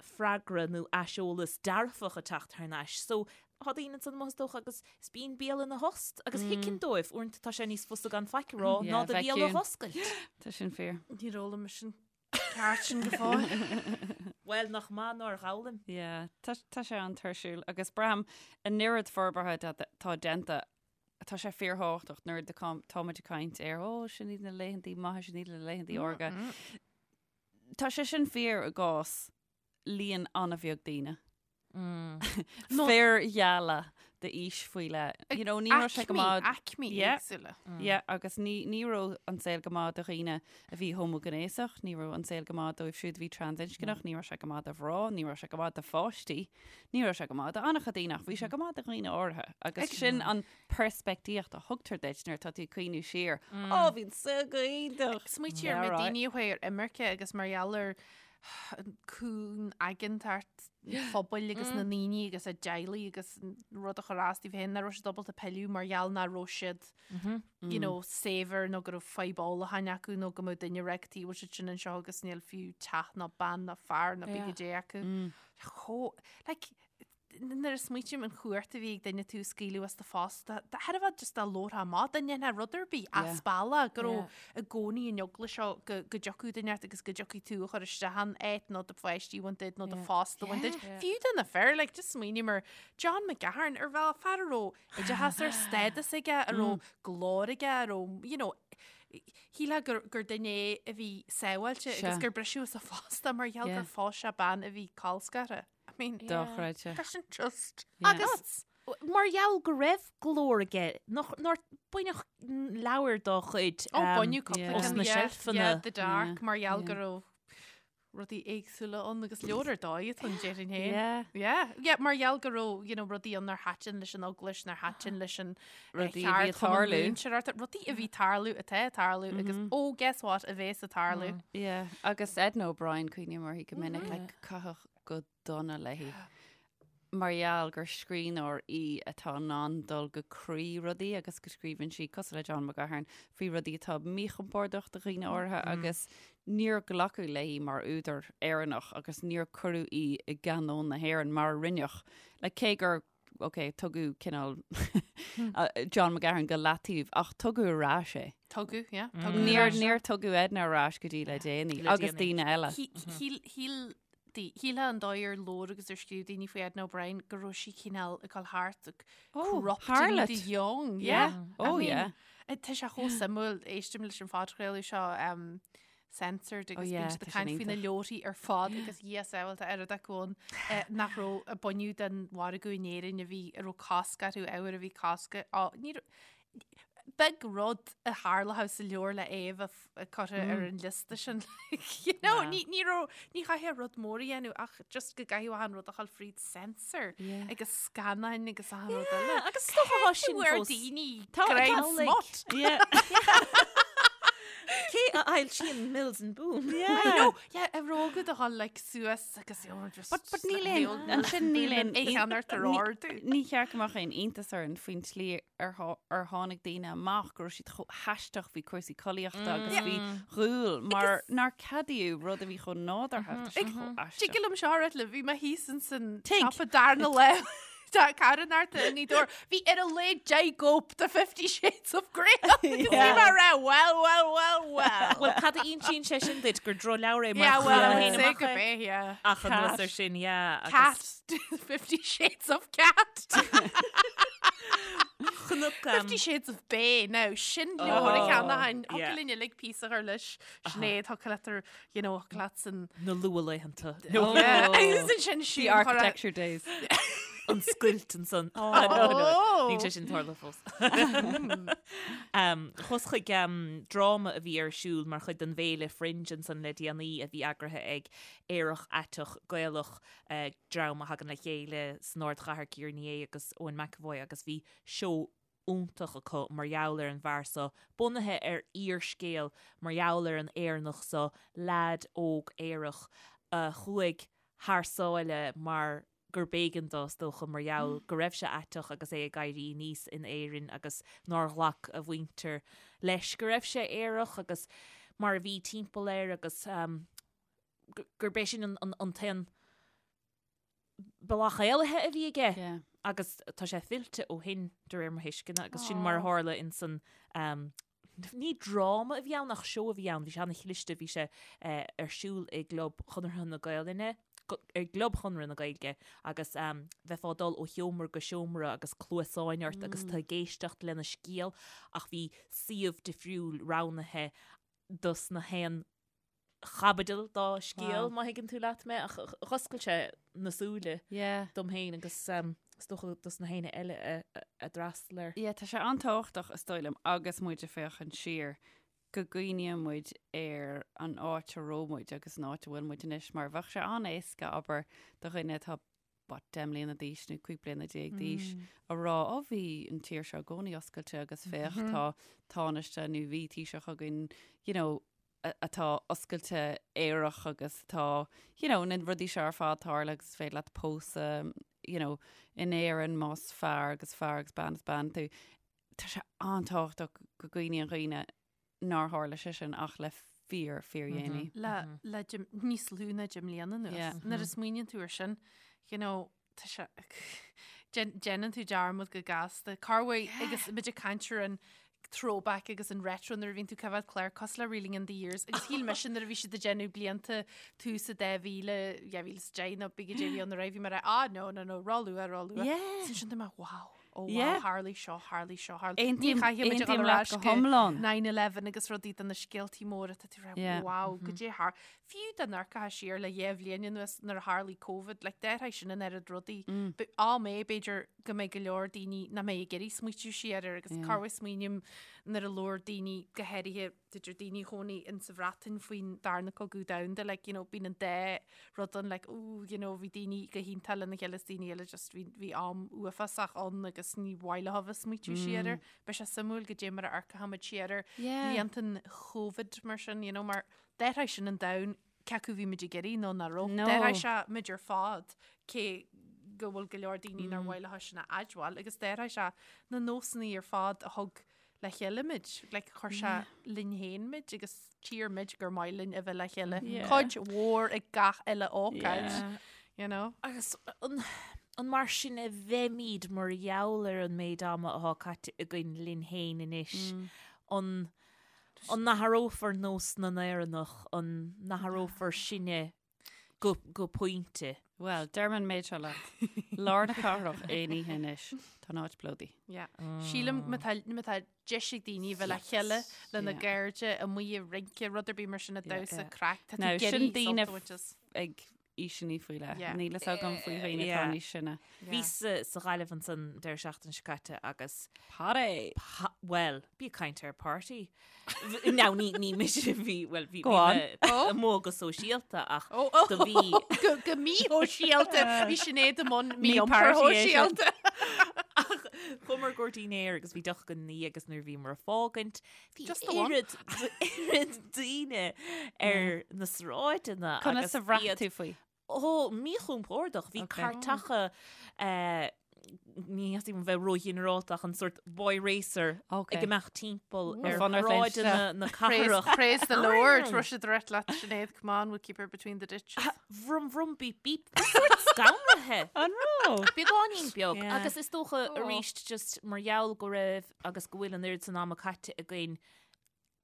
freagra nó aiseolas dearfach ag teacht thar n-ais. So, tá daoine ansan amuigh is dócha agus is bíonn béal ina thost agus thuigfinn dóibh, uaireanta tá sé níos fusa gan faic a rá ná do bhéal a dh'oscailt. Tá sin fíor. Níor fhoghlaim mise an ceart sin go fóill. Bhuel, nach maith nár fhoghlaim. Yeah, tá tá sé an-tuirsiúil agus braithim an oiread forbartha atá déanta tá sé fíorthábhachtach nuair a táimid ag caint ar ó sin iad na laethantaí maithe, sin iad na laethantaí órga. Tá sé sin fíor i gcás líon an-bheag daoine. Fir gheala d'aois faoi leith. You know, ní raibh sé go maith. Aicmí éagsúla. Yeah, agus ní, ní raibh an saol go maith do dhaoine a bhí homaighnéasach, ní raibh an saol go maith dóibh siúd a bhí transinscneach, ní raibh sé go maith do mhná, ní raibh sé go maith do pháistí, ní raibh sé go maith do an-chuid daoine ach bhí sé go maith do dhaoine áirithe. Agus sin an peirspictíocht a thugtar duit nuair atá tú ag cuimhniú siar. Ó, bhí an saol go hiontach! Smaoitigh ar na daoine a chuaigh ar imirce agus mar gheall ar an cúng-aigeantacht an phobail agus na ndaoine agus a dteaghlaigh agus an rud a chur as dóibh féin, nach raibh siad ábalta pilleadh mar gheall nach raibh siad you know, saibhir nó go raibh fadhb ólacháin acu nó go mbeadh duine ag rá cad chuige a bhfuil siad sin anseo agus níl fiú teach ná bean ná fear ná pé goidé acu. Chomh, like, nuair a smaoitím an chumhacht a bhí ag duine tú a scaoileadh as do phost, thar a bheith just dá labharfá amach, dá ndéanfá rud ar bith as bealach, go raibh i gcónaí an eagla seo go dtiocfadh duine ort agus go dtiocfaidh tú a chur isteach an áit nó do pháistí a bhaint díot nó do phost a bhaint díot. Fiú do na fir, like, just smaoiním ar John McGahern, ar bhealach, fear a raibh oideachas ar stádas aige, a raibh glór aige, a raibh, you know, shílfeá gur, gur duine é a bhí sábháilte agus gur briseadh as a phost é mar gheall gur phós sé bean a bhí colscartha. I mean, Dochreidte. Tá sin just Agus mar gheall go raibh glór aige, nach, nár baineadh leabhar dá chuid Ó, baineadh cúpla os ceann, na yeah, seilfeanna. yeah, The Dark, mar gheall go raibh rudaí éagsúla ann agus leabhar ar dóigh atá ann, déarfainn féin. Yeah. Yeah, yeah, mar gheall go raibh, you know, rudaí ann nár thaitin leis an eaglais, nár thaitin leis an eh, Rudaí a bhí ag cheardchumann tarlú. múinteoireachta, rudaí a bhí tarlú, atá ag tarlú agus oh, guess what, a bhéas ag tarlú. Yeah, agus Edna O'Brien cuimhním uirthi go minic, like, caitheadh go dona léi mar gheall gur scríbhneoir í atá in ann dul go croí rudaí agus go scríobhann sí, cosúil le John McGahern, faoi rudaí atá míchompordach do dhaoine áirithe agus níor glacadh léi mar údar Éireannach agus níor cuireadh í i gcanón na hÉireann mar a rinneadh. Like, cé gur ok, tugadh cineál John McGahern go leataobh ach tugadh ar ais é. Tugadh, yeah. Tugadh ar Níor, ais é. níor tugadh Edna ar ais go dtí le déanaí Le agus déanaí. daoine eile. Shíl, shíl, di- shílfeá an dóigh ar labhair agus ar scríobh daoine faoi Edna O'Brien go raibh sí cineál ag dul thart ag Oh, corrupting harlot. the young. Yeah. Yeah. Oh, I mean, yeah. eh, Tá sé chomh suimiúil, éistim leis an phodchraoladh seo um, censored agus Oh, yeah, bíonn siad tá ag sin caint faoi na iontach. leabharthaí ar fad agus Dhia sábháilte oiread acu ann eh, nach raibh a baineadh den mhargadh in Éirinn a bhí a raibh cosc orthu ábhar a bhí cosc á ní raibh- beag rud a tharlódh sa leabhar le é a bheith f- curtha ar an liosta sin you know, Wow. ní ní raibh ní chaithfeá rud mór a dhéanamh ach just go gcaithfeadh achan rud a dhul fríd censor Yeah. agus scannáin agus achan rud eile. Agus is dócha thá sin Bhfuair fós. daoine Tá- greim tá, like- smut. Yeah. Cé a fhoilsíonn Mills and Boon? I know, yeah, a raibh agat a dhul like suas agus you know, just But, but just níl like aon, the old ansin níl aon, é cheann ort ar ardú. ní cheart go mbeadh aon iontas orainn faoin tslí ar thá- ar tháinig daoine amach go raibh siad chomh haisteach faoi chúrsaí collaíochta agus faoi dhúil mar nár ceadaíodh rud a bhí chomh nádúrtha. Tá sé chomh aisteach. Tig liom seo a ráit libh, bhí mé thíos ins an Tig. siopa darna lá Tá carnarta i nGaoth Dobhair. Bhí ar a laghad 10 gcóip de Fifty Shades of Grey ann agus bhí mé ag rá well, well, well, well. Bhuel, cad a insíonn sé sin duit gur drochleabhar é mar Yeah, well, I chuir would mé say amach go é. bé, yeah. Ach anuas ar sin, yeah. Cat, Fifty Shades of Cat. Chonac, Fifty Shades of Bay, now, sin leabhar a Oh, cheannóchainn. yeah. Thiocfadh linn uilig píosa a chur leis. Sinéad, thiocfadh leat ar, you know, thiocfadh leat san Na luathlaethanta. Oh. Yeah. Agus ansin The siúd chur a- architecture days. An scoilt ansan. Oh. No, no. Níl sé sin tarlaithe fós. Um, Chuas chuig um, dráma a bhí ar siúl mar chuid den bhféile Fringe ansan le déanaí a bhí eagraithe ag Aerach Aiteach Gaelach eh, dream a thagann le chéile san ardchathair Ciara Ní É agus Eoin McEvoy agus bhí seó iontach acu mar gheall ar an bhfear so, bunaithe ar fhíorscéal mar gheall ar an Éireannach so, leaid óg aerach a chuaigh thar sáile mar gur b'éigean dó, is dócha, mar gheall go raibh sé aiteach agus é ag éirí aníos in Éirinn agus nár ghlac a mhuintir leis go raibh sé aerach agus mar a bhí timpeall air agus gurb é sin an t-aon. Bealach éalaithe a bhí aige yeah. agus tá sé fillte ó shin de réir mo thuisceana agus sin mar a tharla in san um, ní dráma a bhí ann ach seó a bhí ann, bhí sé an-chliste, bhí sé eh, ar siúl i gClub Chonartha na Gaelainne, i gClub Chonradh na Gaeilge agus um, bheifeá ag dul ó sheomra go seomra agus cluasáin ort agus mm. tú ag éisteacht lena scéal ach bhí suíomh difriúil roghnaithe dos na haon chaibidil dá scéal, má thuigeann tú leat mé, ach dh'oscail sé na súile dom féin agus is dócha dos na héinne eile a d'fhreastail air. Yeah, tá sé an-tábhachtach, is dóigh liom, agus muid ag féachaint siar, go gcuimhníonn muid ar an áit a raibh muid agus an áit a bhfuil muid anois, mar bheadh sé an-éasca, abair, do dhuine atá what, 10 mbliana d'aois nó 15 bliana d'aois a rá, ó bhí an tír seo i gcónaí oscailte agus féach tá tánaiste nó bhí Taoiseach againn, you know, atá oscailte aerach agus atá, you know, na rudaí seo ar fad tarla agus is féidir leat pósadh, you know, in Éirinn más fear agus fear agus bean is bean tú. Tá sé an-tábhachtach go gcuimhníonn dhaoine nár tharla sé sin ach le fíor, fíor dhéanaí. Le, le níos lú ná 10 mbliana anuas. Yeah. Nuair a smaoiníonn tú ar sin, you know, tá sé, déanann tú dearmad go gasta. Corruair agus muid ag caint ar an throwback agus an retro nuair a bhíonn tú ag coimhéad clár cosúil le Reeling in the Years agus shíl mise nuair a bhí siad ag déanamh blianta tús a 2000, 2010 nó b'fhéidir bhí an raibh bhí mé ah no no no ró-luath ró-luath. Yeah. Sin sin mé wow. Oh wow, Yeah. tharlaigh seo, tharlaigh seo, tharlaigh. Aontaím- Ní chaithfidh muid a dhul aontaím ar leat ais go go hiomlán. 9/11 agus rudaí de na scéaltaí móra tá tú ag rá, Yeah. wow, goidé thar. Fiú dá n-amharcfá siar le dhá bhliain anuas nuair a tharlaigh Covid, like d'athraigh sin an oiread rudaí. But am é b'fhéidir go mbeidh go leor daoine nach mbeidh ag iarraidh smaoitiú siar air agus Yeah. corruair smaoiním nuair a labhair daoine go háirithe b'fhéidir daoine a chónaigh in sa Bhreatain faoin darna cogadh domhanda, like, you know, bíonn an dá rud ann, like, ooh, you know, bhí daoine go hiontach lena chéile is daoine eile just bhí, bhí am uafásach ann agus ní mhaith leo a bheith ag smaoitiú siar air. Beidh sé suimiúil goidé mar a amharcfaimid siar ar Yeah. bhlianta an Covid mar sin, you know, mar d'athraigh sin an domhan cé acu bhí muid ag iarraidh nó nach raibh. No. D'athraigh sé muid ar fad cé go bhfuil go leor daoine nár mhaith leo sin a admháil agus d'athraigh sé na nósanna ar fad a thug le chéile muid, like chuir sé linn féin muid agus tír muid gur maith linn a bheith le chéile. Yeah. Cuid mhór ag gach uile ócáid, Yeah. you know. Agus an, an mar sin a bheimid mar gheall ar an méid ama atá caite againn linn féin anois? An, an n-athrófar nós na nÉireannach, an n-athrófar sinne go, go pointe? Bhuel, deirim an méid seo leat. Lár na cathrach aon oíche anois, tá an áit plódaithe. Yeah. Sílim má tá, má tá deis ag daoine bheith le chéile lena Yeah. gcairde amuigh ag rince, rud ar bith mar sin ag Yeah, damhsa yeah. craic, tá tú Now, ag sin iarraidh daoine sult a bhaint as. ag aoiseanna faoi leith. Yeah. Níl fhios agam faoi dhaoine atá Yeah. níos sine. Yeah. Bhíos sa Ghaillimh ansan deireadh seachtaine seo caite agus Party! pa- bhuel, bí ag caint ar party. Now, ní, ní mise a bhí, bhuel, bhí, Go bhí on. mé Oh. amuigh go sóisialta ach Oh, oh, do bhí go, go míshóisialta. Bhí Sinéad i mbun Ní mí-iompar party é sin. shóisialta. ach chuamar go dinnéar agus bhí deoch againn ina dhiaidh agus nuair a bhíomar ag fágaint, bhí Just the one. oiread, oiread daoine ar na sráideanna Conas agus a bhraith iad tú faoi? Ó, míchompordach. Bhí Ok. cairteacha, eh, ní theastaíonn uaim bheith róghinearálta ach an sórt boy racer Ok. ag imeacht timpeall Ar ar fonn ort léim shráideanna na Praise, cathrach. praise the Lord. Raibh siad ag rith leat Sinéad, come on, we'll keep her between the ditches. Vroom vroom beep beep. Bhí sórt scanraithe. An raibh? Beagáinín beag. Yeah. Agus is dócha Oh. arís just mar gheall go raibh agus go bhfuil an oiread san ama caite againn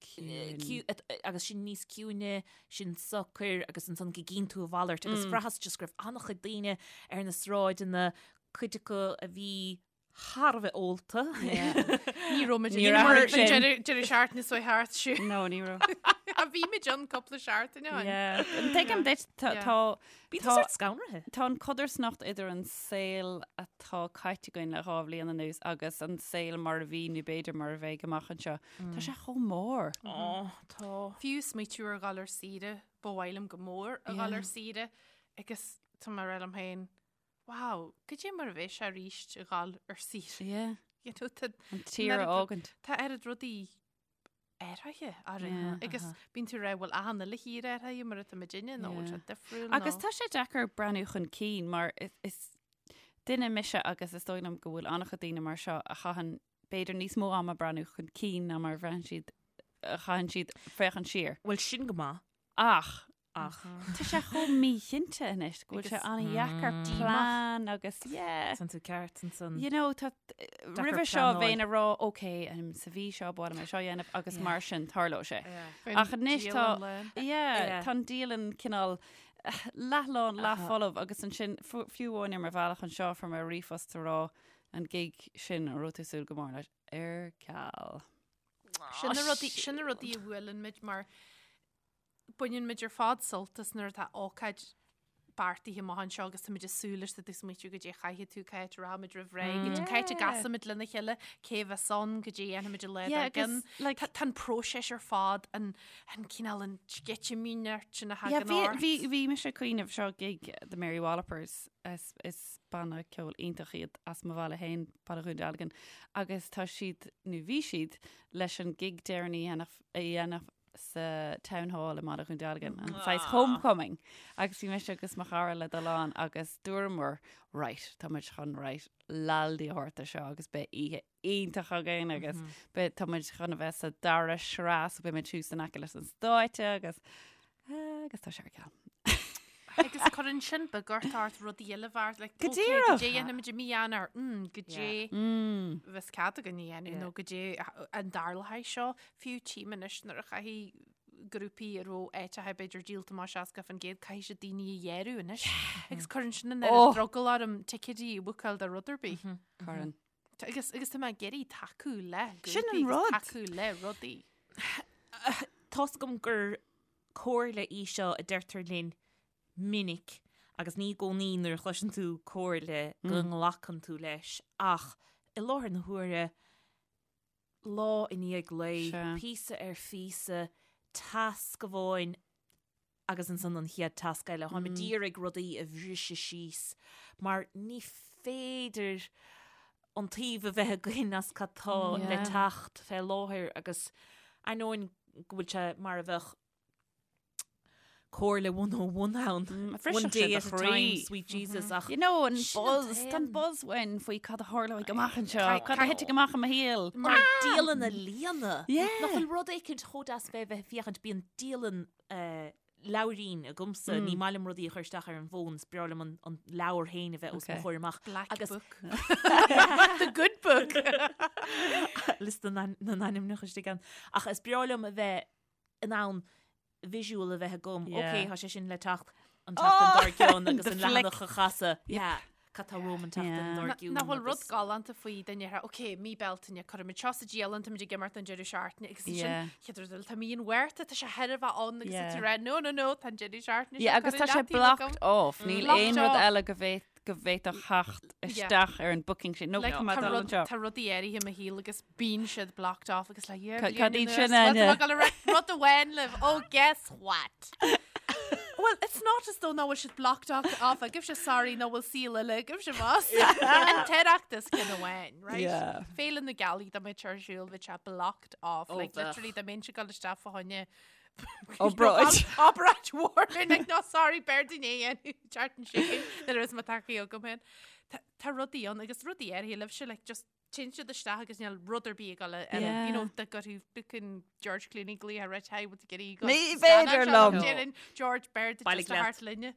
Ciúin. agus sinn níos ciúine, sinn socair agus ansan go gcíonn tú a mhalairt agus bhraitheas just go raibh an-chuid daoine ar na sráideanna, cuid acu a bhí thar a bheith ólta. Ní raibh muid Níor ag athraigh sin. deireadh seachtaine seo thart siúd. No, ní raibh. A bhí muid ann cúpla seachtain ó shin. Yeah. Tuigim duit, tá, Yeah. tá, Bhí Tá- sórt scanraithe. tá an codarsnacht idir an saol atá caite againn le 2 bhliain anuas agus an saol mar a bhí nó b'fhéidir mar a bheidh amach anseo. Tá sé chomh mór. Ó, tá. Fiú smaoitiú ar dhul ar saoire, ba mhaith liom go mór a dhul ar saoire agus tá mé ag rá liom féin, wow, goidé mar a bheidh sé arís a dhul ar saoire. Yeah. You know, tá An tír a oiread- fhágaint. Tá oiread rudaí athraithe orainn Yeah. agus bíonn tú ag rá bhfuil achan uile thír athraithe mar atá muidinne nó bhfuil sé Yeah. difriúil Agus nó tá sé deacair breathnú chun cinn mar is, is duine mise agus is dóigh liom go bhfuil an-chuid daoine mar seo a chaitheann b'fhéidir níos mó ama breathnú chun cinn ná mar a bhraitheann siad a chaitheann siad féachaint siar. Bhuel sin go maith. Ach. Ach. Tá sé chomh míchinnte anois go bhfuil sé an-dheacair plean agus yeah. Tá tú ceart ansan. You know, tá roimhe seo bheinn ag rá ok, sa mhí seo ba mhaith liom é seo a dhéanamh agus mar sin tarlóidh sé. Ach anois tá yeah, tá an dialann cineál leathlán, leathfholamh agus ansin fiú amháin ar mo bhealach anseo fuair mé ríomhphost ag rá an gig sin a raibh tú ag súil go mór leis ar ceal. Sin na rudaí, sin na rudaí a bhuaileann muid mar baineann muid ar fad sult as nuair atá ócáid beartaithe amach anseo agus táimid ag súil leis tá tú ag smaoitiú goidé a chaithfidh tú, cá háit a rachaimid roimh ré, cá háit a gcasfaimid lena chéile, cé a bheas ann, goidé a dhéanfaimid an lá dár gcionn. Tá tá an próiseas ar fad, an an cineál an sceitimíneacht sin a thagann ort. Bhí bhí mise ag cuimhneamh seo gig The Mary Wallopers is is banna ceoil iontach iad as mo bhaile féin, Baile Dhún Dealgan, agus tá siad, nó bhí siad, leis an gig deireanach a dhéanamh sa Town Hall i mBaile Dhún Dealgan, an saghas homecoming. Agus bhí mise agus mo chara le dul ann agus dúramar, right, tá muid chun right, laldaí a thabhairt do seo agus beidh oíche iontach againn agus beidh tá muid chun a bheith sa dara sraith so beidh muid thuas in aice leis an stáitse agus agus tá sé ar ceal. Agus cuireann sin beagort ort rudaí eile a bheart, like, Go okay, díreach. goidé a dhéanfaimid i mí Eanáir, mm, goidé Mm. bheas cead againn a dhéanamh nó goidé an dtarlóidh seo, fiú tchím anois nuair a chaithfidh grúpaí a raibh áiteacha b'fhéidir díolta amach 60%, caithfidh siad daoine a ghearradh anois. Agus cuireann sin an oiread Oh. drogall orm ticéidí a bhookáil do rud ar bith. Cuireann. Agus agus tá mé ag iarraidh tacú le Sin grúpaí an agus rud. tacú le rudaí. Tá's agam gur comhairle í seo a deirtear linn minic agus ní i gcónaí nuair a chloiseann tú comhairle go nglacann tú leis ach i láthair na huaire, lá i ndiaidh lae, píosa ar phíosa, tasc amháin agus ansan an chéad tasc eile. Táim ag iarraidh rudaí a bhriseadh síos mar ní féidir an taobh a bheith againn as cad tá le teacht fé láthair agus ainneoin go bhfuil sé mar a bheadh comhairle 101 ann, one day at a time, sweet Jesus, ach You know, an sin an buzz, tá an t-aon. buzz uainn faoi cad a tharlóidh amach anseo, cad a thitfidh amach i mo shaol. Mar dialann a líonadh. Yeah. Nach bhfuil rud éicint chomh deas fé bheith ag féachaint, bíonn dialann eh, leabhairín agamsa, ní maith liom rudaí a chur isteach ar an bhfón, is breá liom an leabhar féin a bheith os mo Okay. chomhair amach. Black Agus book. The good book. liosta na na n-ainmneacha istigh ann. Ach is breá liom a bheith in ann visual a bheith agam. Yeah. Ok, tá sé sin le teacht an tseachtain dár gcionn agus The an flick. leathanach a chasadh. Yeah. Cad tá romham an tseachtain Yeah. dár Na- gcionn. Nach bhfuil rud agus- galánta faoi duine a rá, ok, mí Bealtaine, cuirfimid seo sa dialann, táimid ag imeacht an deireadh seachtaine agus ansin Yeah. chéad rud eile, tá mí an Mhárta, tá sé thar a bheith ann agus Yeah. tá tú ag rá, no, no, no, tá an deireadh seachtaine Yeah, seo agus curtha tá sé leataobh agam. blocked off. Níl Blocked aon rud off. eile go bhféad go bhféadfadh theacht isteach ar an booking sin. No, Like, tá mé tá dul rud- anseo. tá rudaí áirithe i mo shaol agus bíonn siad blocked off agus like, yeah, Ca- bliain cad iad anuas, sin, bhuel, tá Áine? mé ag dul a rá rud amháin libh, oh guess what? Well, it's not as though nach bhfuil siad blocked off off agaibhse, sorry, nach bhfuil saol eile agaibhse más. An tOireachtas ceann amháin, right? Yeah. Féile na Gealaí dá mbeadh sé ar siúl, bheadh sé blocked off. Oh, Like, bheadh. literally, dá mbeinnse ag dul isteach fá choinne Obráid. Obráid mhór, like, no, sorry, b'fhearr dúinn é a dhéanamh, an tseachtain seo chugainn, nuair a bheas mo thacaí agam féin. Tá- Tá rudaí ann agus rudaí áirithe libhse, like, just téann siad isteach agus níl rud ar bith ag dul a- Yeah. you know, dá gcuirfeadh fucking George Clooney glaoch ort, hi, what's getting go? Ní féidir liom. Déanann George Baird Bailigh just a leat. thart linne.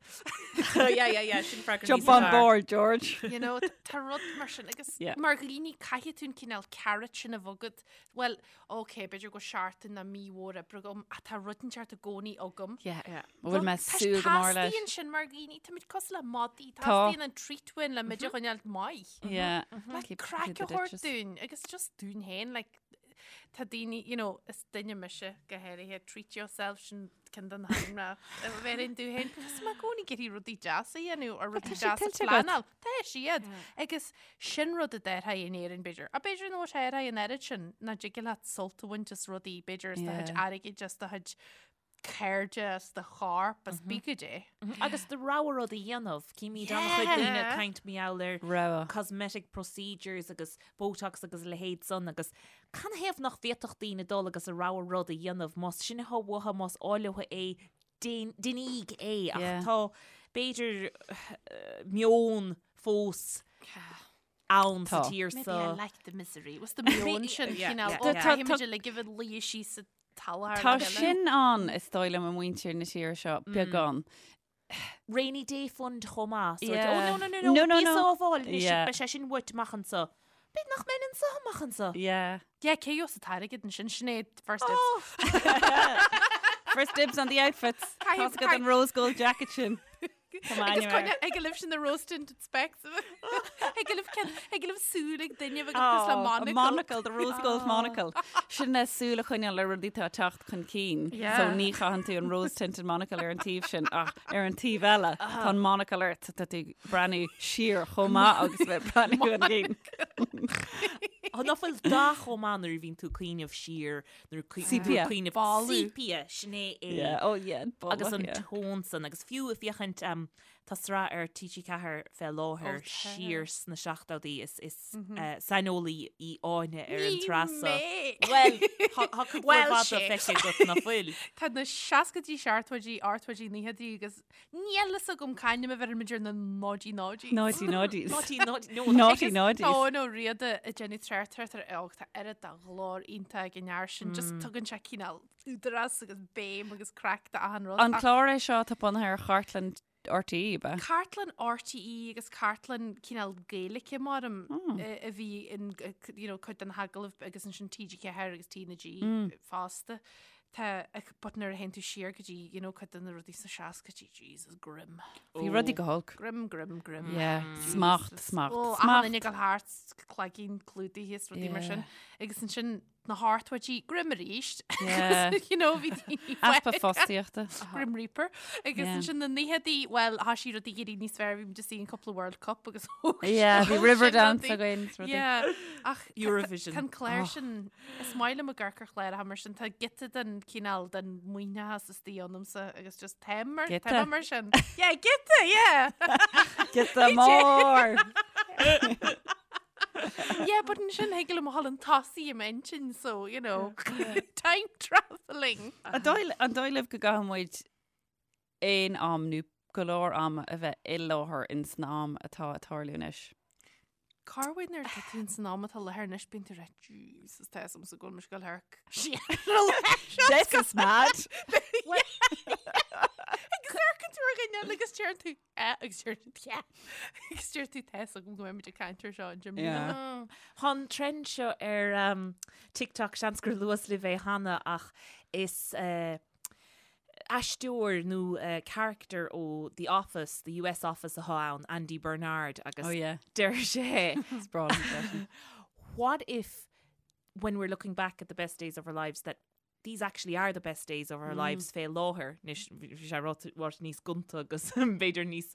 Yeah, yeah, yeah, sin freagra Jump níos on fearr. board, George. You know, tá rud mar sin agus Yeah. mar dhaoine caithfidh tú an cineál carrot sin a bheith agat. Well, ok, b'fhéidir go bhfuil seachtain nó mí mhór oibre agam, ach tá rud inteacht i gcónaí agam. Yeah. Bhfuil mé súil go mór leis. Teastaíonn sin mar dhaoine, táimid cosúil le madaí, Tá. teastaíonn an treat uainn le muid a choinneáil maith. Yeah. Like, Keep craic to a the thabhairt ditches. dúinn, agus just dúinn féin, like, tá daoine, you know, is duine mise go háirithe, treat yourself sin ceann de na hainmneacha a bheireann domh féin, because tá mé i gcónaí ag iarraidh rudaí deasa a dhéanamh or rudaí tá sé deasa a tuillte agat. phleanáil. Tá siad. Agus sin rud a déarfainn in Éirinn, b'fhéidir. Ach b'fhéidir nach bhfuil sé ar aghaidh an oiread sin, nach dtig leat sult a bhaint as rudaí, b'fhéidir as do chuid Yeah. airgid, as do chuid cairde, as do chorp, as pé goidé. Agus do rogha rud a dhéanamh, címid an-chuid daoine ag caint mar gheall ar Rogha. cosmetic procedures agus Botox agus a leithéid san agus canathaobh nach bhféadfadh daoine dul agus a rogha rud a dhéanamh, más sin atá uathu, más áil leo é, déanaíg é ach Yeah. tá b'fhéidir meon fós ann sa Tá. tír Maybe seo. I like the misery. Was the meon sin Yeah, cineál yeah, ó yeah. caithfimid uilig a bheith luí síos sa Tá Tá sin ann, is dóigh liom, i muintir na tíre seo, beagán. Rainy Day Fund chomh maith. So, Yeah. oh, no, no, no, no, No, no, bí no. sábháil anois, Yeah. beidh sé sin uait amach anso. B'fhéidir nach mbeinn anso amach anso. Yeah. Yeah, cé gheobhas an t-airgead ansin, Sinéad, first dibs. First dibs on the outfits. Caithfidh- Tá's agat an rose gold jacket sin. Tá m'ainm Agus air. coinne ag libh sin na rose tinted specs. Ag libh cen ag libh súil ag duine agus le Oh, a monocle. monocle, the rose gold monocle. Sin le súil a choinneáil ar rudaí atá ag teacht chun cinn. Yeah. So ní chaitheann tú an rose tinted monocle ar an taobh sin ach ar an taobh eile tá an monocle ort tá tú ag breathnú siar chomh maith agus bheith breathnú chun cinn. Tá nach bhfuil dath chomh maith nuair a bhíonn tú ag cuimhneamh siar nuair a Sepia. cuimhneamh Boladh. Sepia, sin é é. Yeah, oh yeah, boladh, Agus an yeah. tón san, agus fiú ag féachaint um, tá sraith ar TG4 fé láthair Ó, tá. siar sna seachtóidí is, is uh, saineolaí í Áine ar an Ní tsraith so. mé. Well, tá tá cuid mhór Well, fada sé. feicthe agat nach bhfuil. Tá na seascaidí seachtóidí ochtóidí nóchaidí agus níl fhios agam c'ainm a bheirimid ar na náidí náidí. Naughty naughties. Naughty, naughty, no, Naughty Agus naughties. Tá nó riada ag déanamh tráchtaireacht ar óg tá oiread de ghlór iontach ag an fhear sin just tugann sé cineál údarás agus béim agus craic do achan rud. An Ach clár é seo atá bunaithe ar chartlann RTÉ, ab ea? Cartlann RTÉ agus cartlann cineál Gaeilge maram a bhí in you know, cuid den agallamh agus ansin TG4 agus TnaG fosta. Tá but nuair a théann tú siar go dtí you know, cuid de na rudaí sna seascaidí, Jesus, grim. Bhí rudaí go holc. Grim, grim, grim. Yeah, smacht, smacht, Ó, smacht. achan duine ag dul thart, cloigín clúdaithe is rudaí mar Yeah. sin. Agus ansin na hochtóidí, grim arís. Yeah. You know, bhí daoine Easpa fágtha. fostaíochta. Grim Reaper. Agus Yeah. ansin na nóchaidí, well, thá sí rudaí ag éirí níos fearr, bhí muid ag an cúpla World Cup agus thóg Yeah, bhí thóg sin Riverdance rudaí. againn is rudaí. Yeah, ach tá- Eurovision. Tá an clár sin, is maith liom ag amharc ar chláracha mar sin, tá giota den cineál den maoithneachas istigh ionamsa agus just táim mar, Giota. táim mar sin. Yeah, giota, yeah! Giota mór! Yeah, but ansin thig liom a dhul chun tosaigh i m'intinn, so, you know, time travelling. An dóigh an dóigh libh go gcaithfidh muid aon am nó go leor ama a bheith i láthair in san am atá ag tarlú anois? Corruair nuair atá tú san am atá i láthair anois bíonn tú rá Jesus tá fhios agamsa go bhfuil mise ag dul thar This is mad! Agus amharcann tú ar dhuine eile agus deireann tú eh agus deir tú yeah agus deir tú tá fhios agam go mbeidh muid ag caint air seo an Jim Yeah. Tá an trend seo ar um, TikTok seans gur luas libh é cheana ach is uh, aisteoir nó character ó The Office, The US Office atá ann, Andy Bernard, agus Oh yeah. deir sé Is breá liom freisin. What if when we're looking back at the best days of our lives that these actually are the best days of our lives fé láthair anois bhí sé ráite níos gonta agus b'fhéidir níos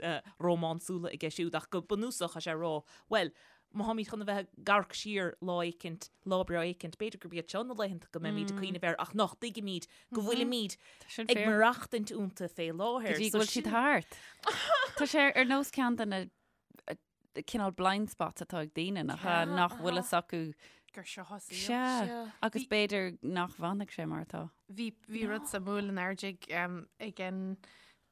rómánsúla aige siúd ach go bunúsach tá sé ag rá well má tháimid chun a bheith ag amharc siar lá éicint, lá breá éicint, b'fhéidir gurb iad seo na laethanta go mbeimid ag cuimhneamh air ach nach dtuigimid go bhfuilimid Sin ag fíor. maireachtaint iontu fé láthair. Go dtí So go bhfuil siad sin- thart. Tá sé ar nós ceann de na eh, cineál blind spots atá ag daoine nach ea, nach bhfuil fhios acu. Gur seo a saol. Sea. Agus b'fhéidir nach bhfanfaidh sé mar atá. Bhí bhí rud suimiúil in airde ag ag an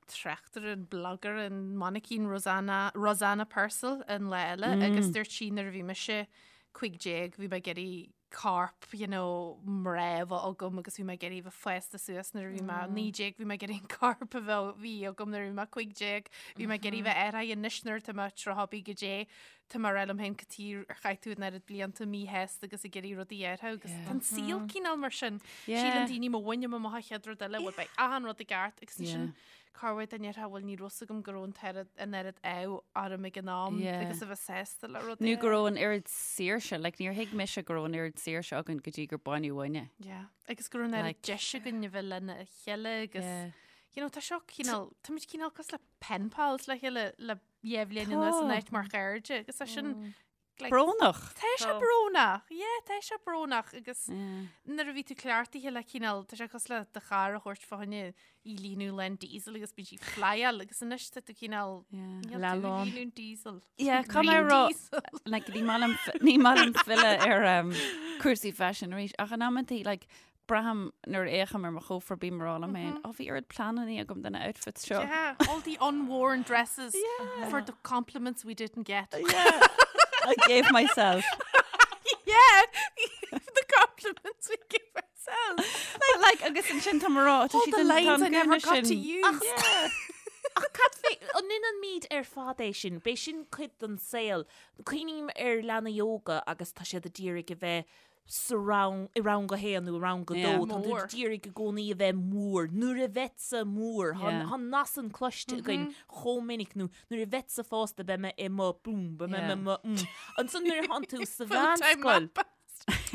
tráchtaire, an blogger, an mainicín Rosanna, Rosanna Purcell an lá eile agus dúirt sí nuair a bhí mise 15 bhí mé ag iarraidh corp, you know, mná a bheith agam agus bhí mé ag iarraidh bheith fásta suas nuair a bhí mé 19 bhí mé ag iarraidh an corp a bheith bhí agam nuair a bhí mé 15 bhí mé ag iarraidh bheith athraithe anois nuair atá mé 30 bí go dé tá mé ag rá liom féin cad chuige ar chaith tú an oiread blianta míshásta agus ag iarraidh rudaí a athrú agus tá an saol cineál mar sin. Síleann daoine má bhainim amach an chéad rud eile, bhuel beidh achan rud i gceart agus ansin corruair dá ndéarfá bhuel ní raibh fhios agam go raibh an t-oiread an oiread ádh orm ag an am agus a bheith sásta le rudaí. Nó go raibh an oiread saoirse, like níor thuig mise go raibh an oiread saoirse againn go dtí gur baineadh uainn é. Yeah. Agus go raibh an oiread Like- deis againn a bheith lena chéile agus you know tá seo cineál táimid cineál cosúil le pen pals le chéile le dhá bhliain anuas in áit mar chairde agus é sin like, Brónach. Tá sé brónach, yeah, tá sé brónach agus nuair a bhí tú cleachtaithe le cineál, tá sé cosúil le do charr a thabhairt fá choinne í líonadh lán diesel agus bíonn sí ag flyáil agus anois tá tú cineál níl tú ag líonadh diesel. Yeah, caithfidh mé a rá, like, ní maith liom ní maith liom filleadh ar um, cúrsaí faisin arís ach in amantaí like, Braithim nuair a fhéachaim ar mo chófra bím ag rá liom féin, Ó, bhí oiread pleananna agam do na outfits seo. Yeah, all the unworn dresses for the compliments we didn't get. Yeah, I gave myself. Yeah, the compliments we gave ourselves. Myself. But like, agus ansin tá mé ag rá, tá All siad the an- tá lines an I never gúna got to sin. use. Yeah. Ach cad fé, an ndéanaimid ar fad é sin, b'é sin cuid den saol. Cuimhním ar leanaí óga agus tá siad a d'iarraidh a bheith sa rang, i rang a haon nó i rang a dó, Yeah. tá tú Mór. d'iarraidh i gcónaí a bheith mór. Nuair a bheadsa mór, tá Yeah. tá an nath san cloiste againn chomh minic nó nuair a bheadsa fásta beidh mé i mo boom, beidh mé i Yeah. mo mm. Ansan nuair a thánn tú sa Full-time mheánscoil, map.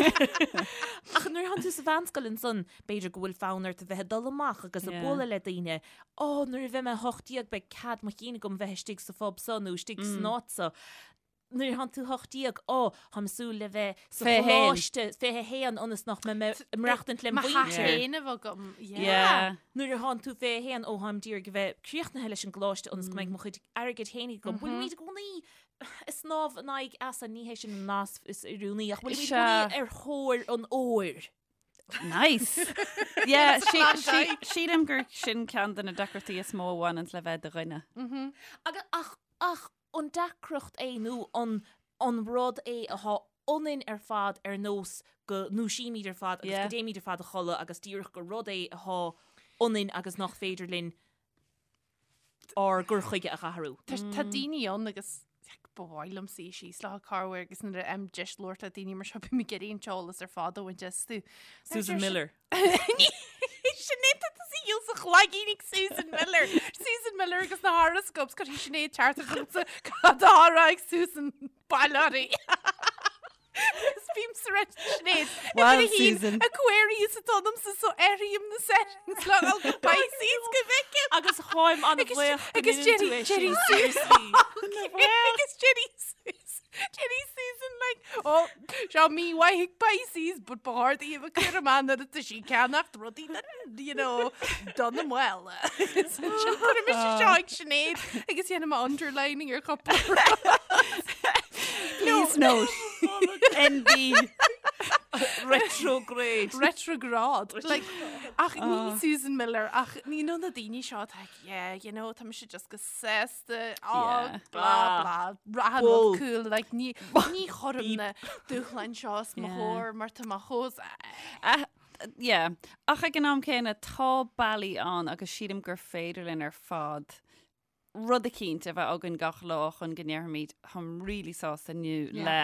Ach nuair a thánn tú sa mheánscoil ansan, b'fhéidir go bhfuil fonn ort a bheith ag dul amach agus ag Yeah. bualadh le daoine. Ó, nuair a bheidh mé 18 beidh cead mo chinn agam bheith istigh sa phub so nó istigh san áit so. Nuair a thánn tú 18, ó, táim ag súil le bheith sa 21. choláiste 21 ionas nach mbeidh mé ag maireachtaint lem Mo theach mhuintir. féin a bheith agam. Yeah. Yeah. Nuair a thánn tú 21, ó, táim d'iarraidh a bheith críochnaithe leis an gcoláiste ionas go mbeidh mo chuid airgid féin agam. Bhfuilimid i gcónaí ag snámh in aghaidh easa, ní hé sin an nath is oiriúnaí, ach bhfuilimid i Sea. gcónaí ar thóir an óir. Nice. Yeah, It's a Klondike. sílim gur sin ceann de na deacrachtaí is mó a bhaineann le bheith i do dhuine. Agus ach, ach an deacracht é nó an, an rud é atá ionainn ar fad ar nós go ndúisímid ar fad agus Yeah. go dtéimid ar fad a chodladh agus díreach gur rud é atá ionainn agus nach féidir linn ár gcur chuige a athrú. Tá tá daoine ann agus ba mhaith liom suí síos leo corruair agus nuair a fhaighim deis labhairt le daoine mar seo bím ag iarraidh an t-eolas ar fad a bhaint astu. Susan Miller. Sinéad tá tusa dhíol sa chlaigín ag Susan Miller. Susan Miller agus na horoscopes cuirfidh Sinéad teachtaireacht chugatsa cad atá á rá ag Susan Bailari. Is bím sa reit Sinéad. Well, Susan. Aquarius atá ionamsa so athraím na settings le dhul go Pisces go bhfeicim. Agus táim an-bhuíoch go Agus ndéanann tú Jerry é sin, Jerry seriously. Agus Jerry Susan Jerry Susan like oh seo mímhaith ag Pisces but ba chóir di a bheith cúramach nuair atá sí ag ceannacht rudaí don you know don na mbaile. Sin cuirim mise seo ag Sinéad agus dhéanaim underlining ar chúpla rud. Please note. NB. Retrograde. Retrograd. Like, ach ní Susan Miller, ach ní nó na daoine seo atá ag, yeah, you know, tá mise just go sásta, oh, Yeah. blah, blah, achan Bull. rud cool, like, ní, ní chuirim na dúshláin seo os mo Yeah. chomhair mar tá mé chomh, Ah, yeah. Ach ag an am céanna tá bealaí ann agus sílim gur féidir linn ar fad rud eicínt a bheith againn gach lá chun go ndéarfaimid táim really sásta inniu le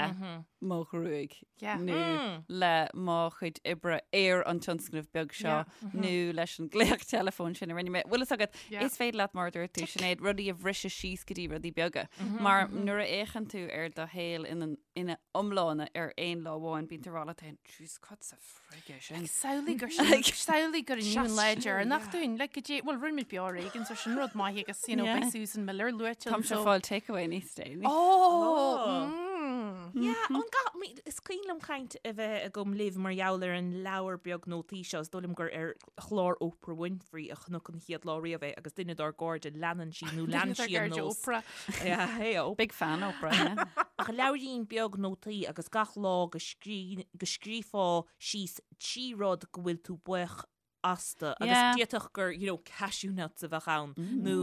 mo ghruaig Yeah. nó le mo chuid oibre ar an tionscnamh beag seo nó leis an glaoch teileafóin sin a rinne mé. Bhfuil fhios agat, Yeah. is féidir leat mar a dúirt tú Sinéad rudaí a bhriseadh síos go dtí rudaí beaga. Mar nuair a fhéachann tú ar do shaol ina ina iomláine ar aon lá amháin bíonn tú ag rá leat féin, Jeez, cad sa frig é sin? Samhlaigh gur sin, samhlaigh gur inniu an lá deireanach dúinn, like go dté, bhuel rinne muid beo ar éigean, so sin rud maith agus, you know, Yeah. beidh Susan Miller luaite Táimse anso. ag fáil takeaway níos déanaí. Oh! Mm. Yeah, an ga, is cuimhin liom caint a bheith agam libh mar gheall ar an leabhar beag nótaí seo, is dóigh liom gur ar chlár Oprah Winfrey a chonac an chéad lá riamh é agus duine dár gcairde leanann sí nó lean Duine dár sí an gcairde nós. Oprah. Yeah, hey oh. Big fan Oprah, yeah. Ach leabhairín beag nótaí agus gach lá go scrí, go scríofá síos 3 rud go bhfuil tú buíoch astu agus Yeah. d'fhéadfadh gur, you know, cashew nuts a bheadh ann nó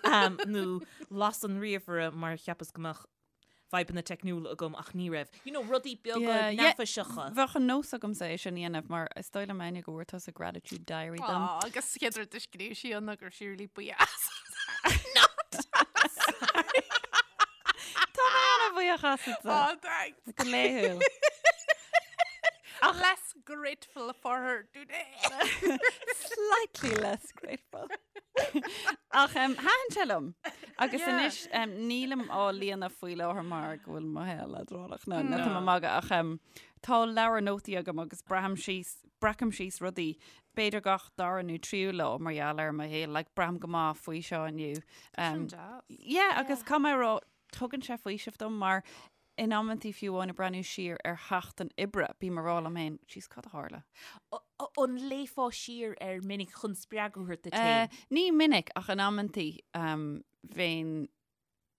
um, nó las an ríomhaire mar cheapas go mbeadh fadhbanna teicniúla agam ach ní raibh. You know, rudaí beaga Yeah, yeah. neafaiseacha. Bheadh an nós agamsa é sin a dhéanamh mar is dóigh liom Áine go bhfuair tusa gratitude diary dom. Aw, agus chéad rud a scríobh sí ann ná go raibh sí really buíoch as. Not! Tá mé an-bhuíoch asatsa. Oh, thanks. Go laethúil. Less grateful for her today. Slightly less grateful. Ach um, thaitin sé liom. Agus Yeah. anois um, nílim á líonadh faoi láthair mar go bhfuil mo shaol leadránach nó no. tá mé ag magadh ach um, tá leabhar nótaí agam agus braithim síos breacaim síos rudaí b'fhéidir gach dara nó tríú lá mar gheall ar mo shaol, like, braithim go maith faoi seo inniu. Um, deas. yeah, agus caithfidh mé a rá tugann sé faoiseamh dom mar in amantaí fiú amháin ag breathnú siar ar sheachtain oibre, bím ag rá liom féin, jeez, cad a tharla? An léifeá siar air minic chun spreagadh a thabhairt duit féin? Ní minic ach in amantaí um, bheinn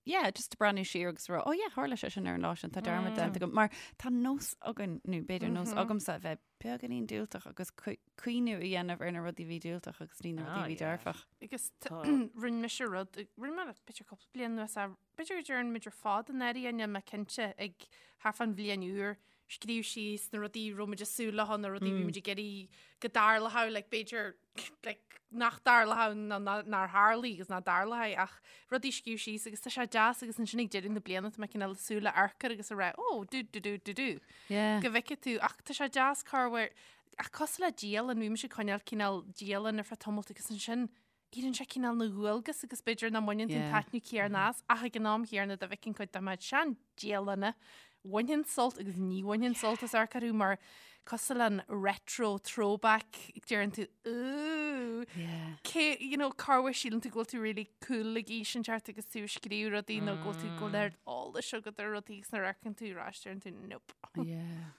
yeah, just ag breathnú siar agus rá, oh yeah, tharla sé sin ar an lá sin, tá dearmad déanta agam. Mar tá nós againn, nó b'fhéidir nós agamsa a bheith beagáinín diúltach agus cuimhniú a dhéanamh ar na rudaí a bhí diúltach agus ní na rudaí a bhí dearfach. Agus rinne mise rud, rinne mé b'fhéidir cúpla bliain anuas, b'fhéidir go dtearn muid ar fad i ndáiríre, níl mé cinnte, ag thart fán bhliain úr. scríobh síos na rudaí a raibh muid ag súil leo, na rudaí a bhí muid ag iarraidh go dtarlódh, like b'fhéidir like nach dtarlódh nó nár tharlaigh agus nach dtarlóidh ach rudaí a scríobh síos agus tá sé deas agus ansin ag deireadh na bliana tá mé cineál ag súil le amharc air agus a rá oh do do do do do Yeah. go bhfeicfidh tú ach tá sé deas corruair ach cosúil le dialann bhí mise ag coinneáil cineál dialann ar feadh tamalt agus ansin éiríonn sé cineál ina dhualgas agus b'fhéidir nach mbaineann tú an taitneamh céanna as ach ag an am chéanna dá bhfeicfinn cuid de mo sean dialanna bhainfinn sult agus ní bhainfinn sult as amharc orthu mar cosúil le an retro throwback deireann tú ooh cé you know corruair síleann tú go bhfuil tú really cool ag aois inteacht agus tú ag scríobh rudaí nó go bhfuil tú go bhfuil oiread eolais agat ar rudaí agus nuair a amharcann tú ar ais deireann tú nope. Yeah.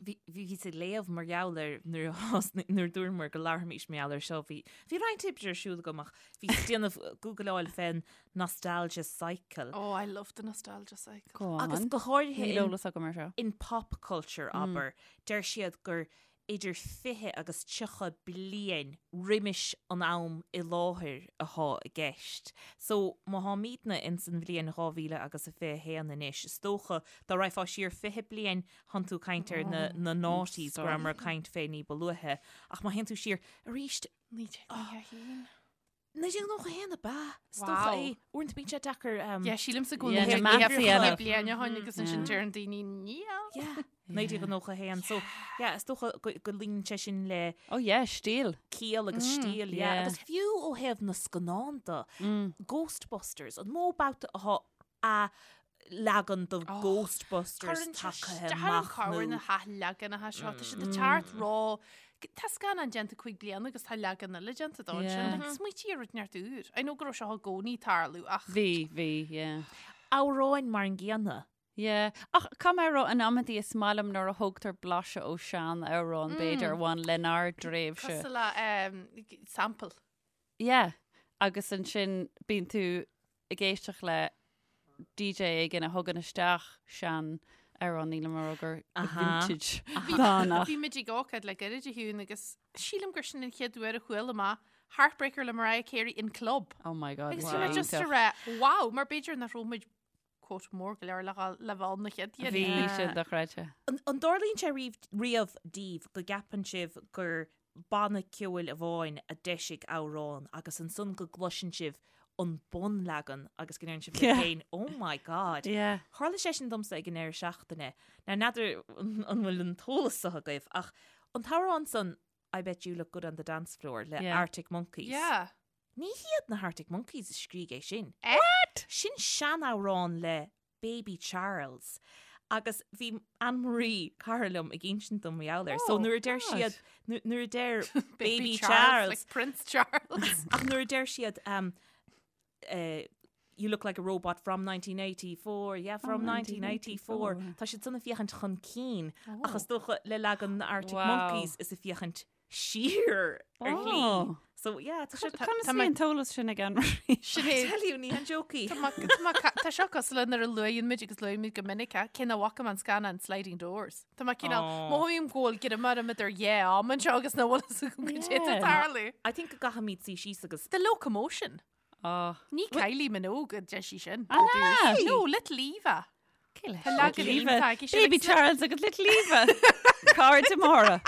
Bhí bhíos ag léamh mar gheall ar nuair a thosnaigh nuair a dúramar go labharfaimis mar gheall air seo bhí bhí roinnt oibre ar siúl agam ach bhíos ag déanamh googleáil fén nostalgia cycle. Oh, I love the nostalgia cycle. Go on. Agus go háirithe Níl in, eolas agam ar seo. in pop culture abair, deir siad gur idir 20 agus 30 bliain roimis an am i láthair athá i gceist. So, má tháimídne ins an bhliain 2000 agus a 21 anois, is dócha, dá raghfá siar 20 bliain, thánn tú ag caint ar na, na noughties, go rabhamar ag caint fé ní ba luaithe. Ach má théann tú siar arís, 1991. 1991 ab ea? Is dócha Wow. é. Uaireanta bíonn sé deacair. Yeah, sílimse go Yeah, bhfuil na maths a dhéanamh. bliain ó shin agus ansin deireann daoine níl. Yeah, 1991. So, yeah, is dócha go go luíonn sé sin le Oh yeah, stíl. ciall agus stíl, yeah. yeah. Agus fiú ó thaobh na scannán de, Ghostbusters, an mó babhta atá a leagan de Ghostbusters tagtha amach nó na hathleaganacha seo tá siad ag teacht ró Tá scannán déanta 5 bliana agus tá leagan eile déanta dó ansin. Like, smaoitigh ar rud inteacht úr. I know go raibh seo i gcónaí ag tarlú ach Bhí, bhí, yeah. Amhráin mar an gcéanna. Yeah. Ach caithfidh mé a rá in amantaí is maith liom nuair a thógtar blaiseadh ó sean-amhrán b'fhéidir a bhain lenár dtréimhse. Cosúil le um, sample. Yeah. Agus ansin bíonn tú ag éisteacht le DJ éigin a thugann isteach sean amhrán nílim ag rá gur vintage atá Bhí muid ag ócáid le gairid a Shiún agus sílim gur sin an chéad uair a chuala mé Heartbreaker le Mariah Carey in club. Oh my god. Agus bhí mé just ag rá wow mar b'fhéidir nach raibh muid quote mór go leor le le bheith ann na chéad uair. Bhí sin dochreidte. An dtarlaíonn sé riamh daoibh go gceapann sibh gur banna ceoil amháin a d'eisigh amhrán agus ansan go gcloiseann sibh an bunleagan agus go ndeireann sibh libh féin oh my god. Yeah. Tharla sé sin domsa ag an deireadh seachtaine. Now n'fheadar an bhfuil an t-eolas seo agaibh ach an t-amhrán san I Bet You Look Good on the Dance Floor le Yeah. Arctic Monkeys. Yeah. Ní hiad na hArctic Monkeys a scrígh é sin. What? Sin seanamhrán le Baby Charles. Agus bhí Anne Marie, cara liom, ag insint dom mar gheall air. So Oh, nuair a deir God. siad, nuair a deir Baby Baby Charles, Charles, like Prince Charles. ach nuair a deir siad um, uh, You look like a robot from 1984, yeah, from 1984. Tá siad san ag féachaint chun cinn, ach is dócha le leagan na Arctic Wow. Monkeys is ag féachaint siar ar shlí. Oh. So yeah, tá sé Conas bhí an t-eolas sin ag Anne-Marie? Sinéad. Tell you, ní han joke í. Tá seo cosúil le nuair a luaigheann muid agus luaigh muid go minic é, cé nach bhfaca mé an scannán Sliding Doors. Tá mé cineál, mothaím go bhfuil grima orm idir dhá am anseo agus nach bhfuil fhios agam goidé atá ag tarlú. I think go gcaithfimid suí síos agus The Locomotion. Oh. Ní Kylie Minogue a deir sí sin. Ah, na! No, Little Eva. Tá leagan Little Eva. iontach aici sin Baby agus- Charles agus Little Eva. Cairde móra.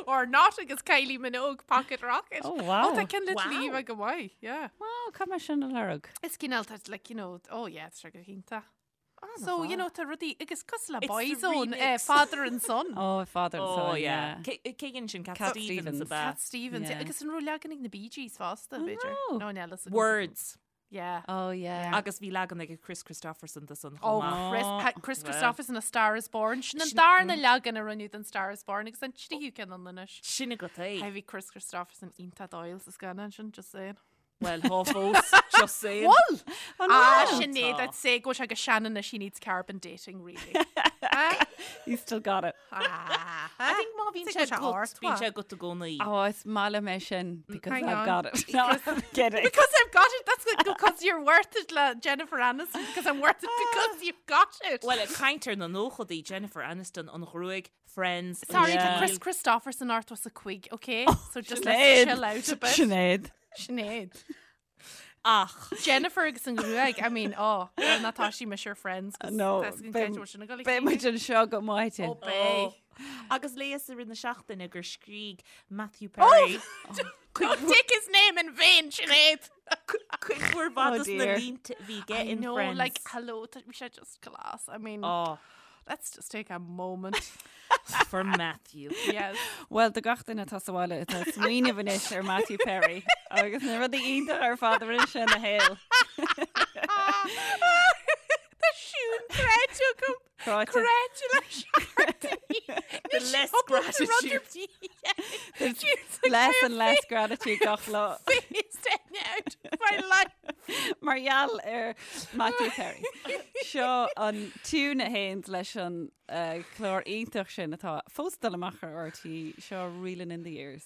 Or not agus Kylie Minogue Pocket Rocket. Oh, wow. Oh, tá ceann Little Wow. Eva go maith, yeah. Wow, caithfidh mé sin a lorg. Is cineál tá like, you know, oh yeah, tá sé go hiontach. So, you know, tá rudaí agus cosúil le It's the Boyzone, eh, remix. Father and Son. Oh, father and Oh son, yeah. yeah. Cé cé dhein sin Cat Cat Stevens Stevens. ab ea? Cat Stevens. Yeah. Agus an raibh leagan ag na Bee Gees fosta, b'fhéidir. no. No, níl fhios agam. Words. Yeah. Oh, yeah. Agus bhí leagan ag Kris Kristofferson de san Oh, chomh maith. Chris, ha, Kris Well. Kristofferson A Star is Born. Sin an darna leagan a rinneadh den Star is Born agus an tríú ceann ann anois. Sin agat é. Bhí Kris Kristofferson iontach dóighiúil sa scannán sin, just saying. Well, thá fós, just saying. Bhfuil! Oh, Ah, no. Sinéad, Tá. I'd say go bhfuil sé go sean anois she needs carbon dating, really. Ah, You still got it. ah, I think má bhíonn Sé sé go agat, ard, bíonn wha? sé agat i gcónaí. Oh, is maith liom é sin because Hang I've on. got it. No, I'm kidding. Because I've got it. That's good, because you're worth it, le Jennifer Aniston. Because I'm worth it because you've got it. Well, ag caint ar na nóchaidí Jennifer Aniston an ghruaig, Friends, an Sorry, Yeah. tá Kris Kristofferson ort was a cuig, okay? So just Sinéad. let's chill out a bit. Sinéad. Sinéad. Ach. Jennifer agus an ghruaig, I mean, oh, well, ná tá sí mise ar Friends, 'cause No, tá a fhios againn beidh- cén t-uair sin ag dul a Beidh muid chéile. anseo go maidin. Oh, beidh. Agus léas i rith na seachtaine gur scrígh Matthew Perry Don't take his name in vain, Sinéad! cuid mhór mhaith Oh dos na dear. línte a bhí aige I in know, Friends. like, hello, tá sé just class. I mean, Oh, let's just take a moment. for Matthew. Yes. Well, do gach duine atá sa bhaile atá ag smaoineamh anois ar Matthew Perry agus na rudaí iontacha ar fad a rinne sé ina shaol. Tá siún creidte agam. Cráite. Creidte leis The less gratitude. Less and less gratitude gach lá. Out of my life. Mar gheall ar Matthew Perry. Seo an tiún a théann leis an eh, clár iontach sin atá fós ag dul amach ar RTÉ, seo Reelin' in the Years.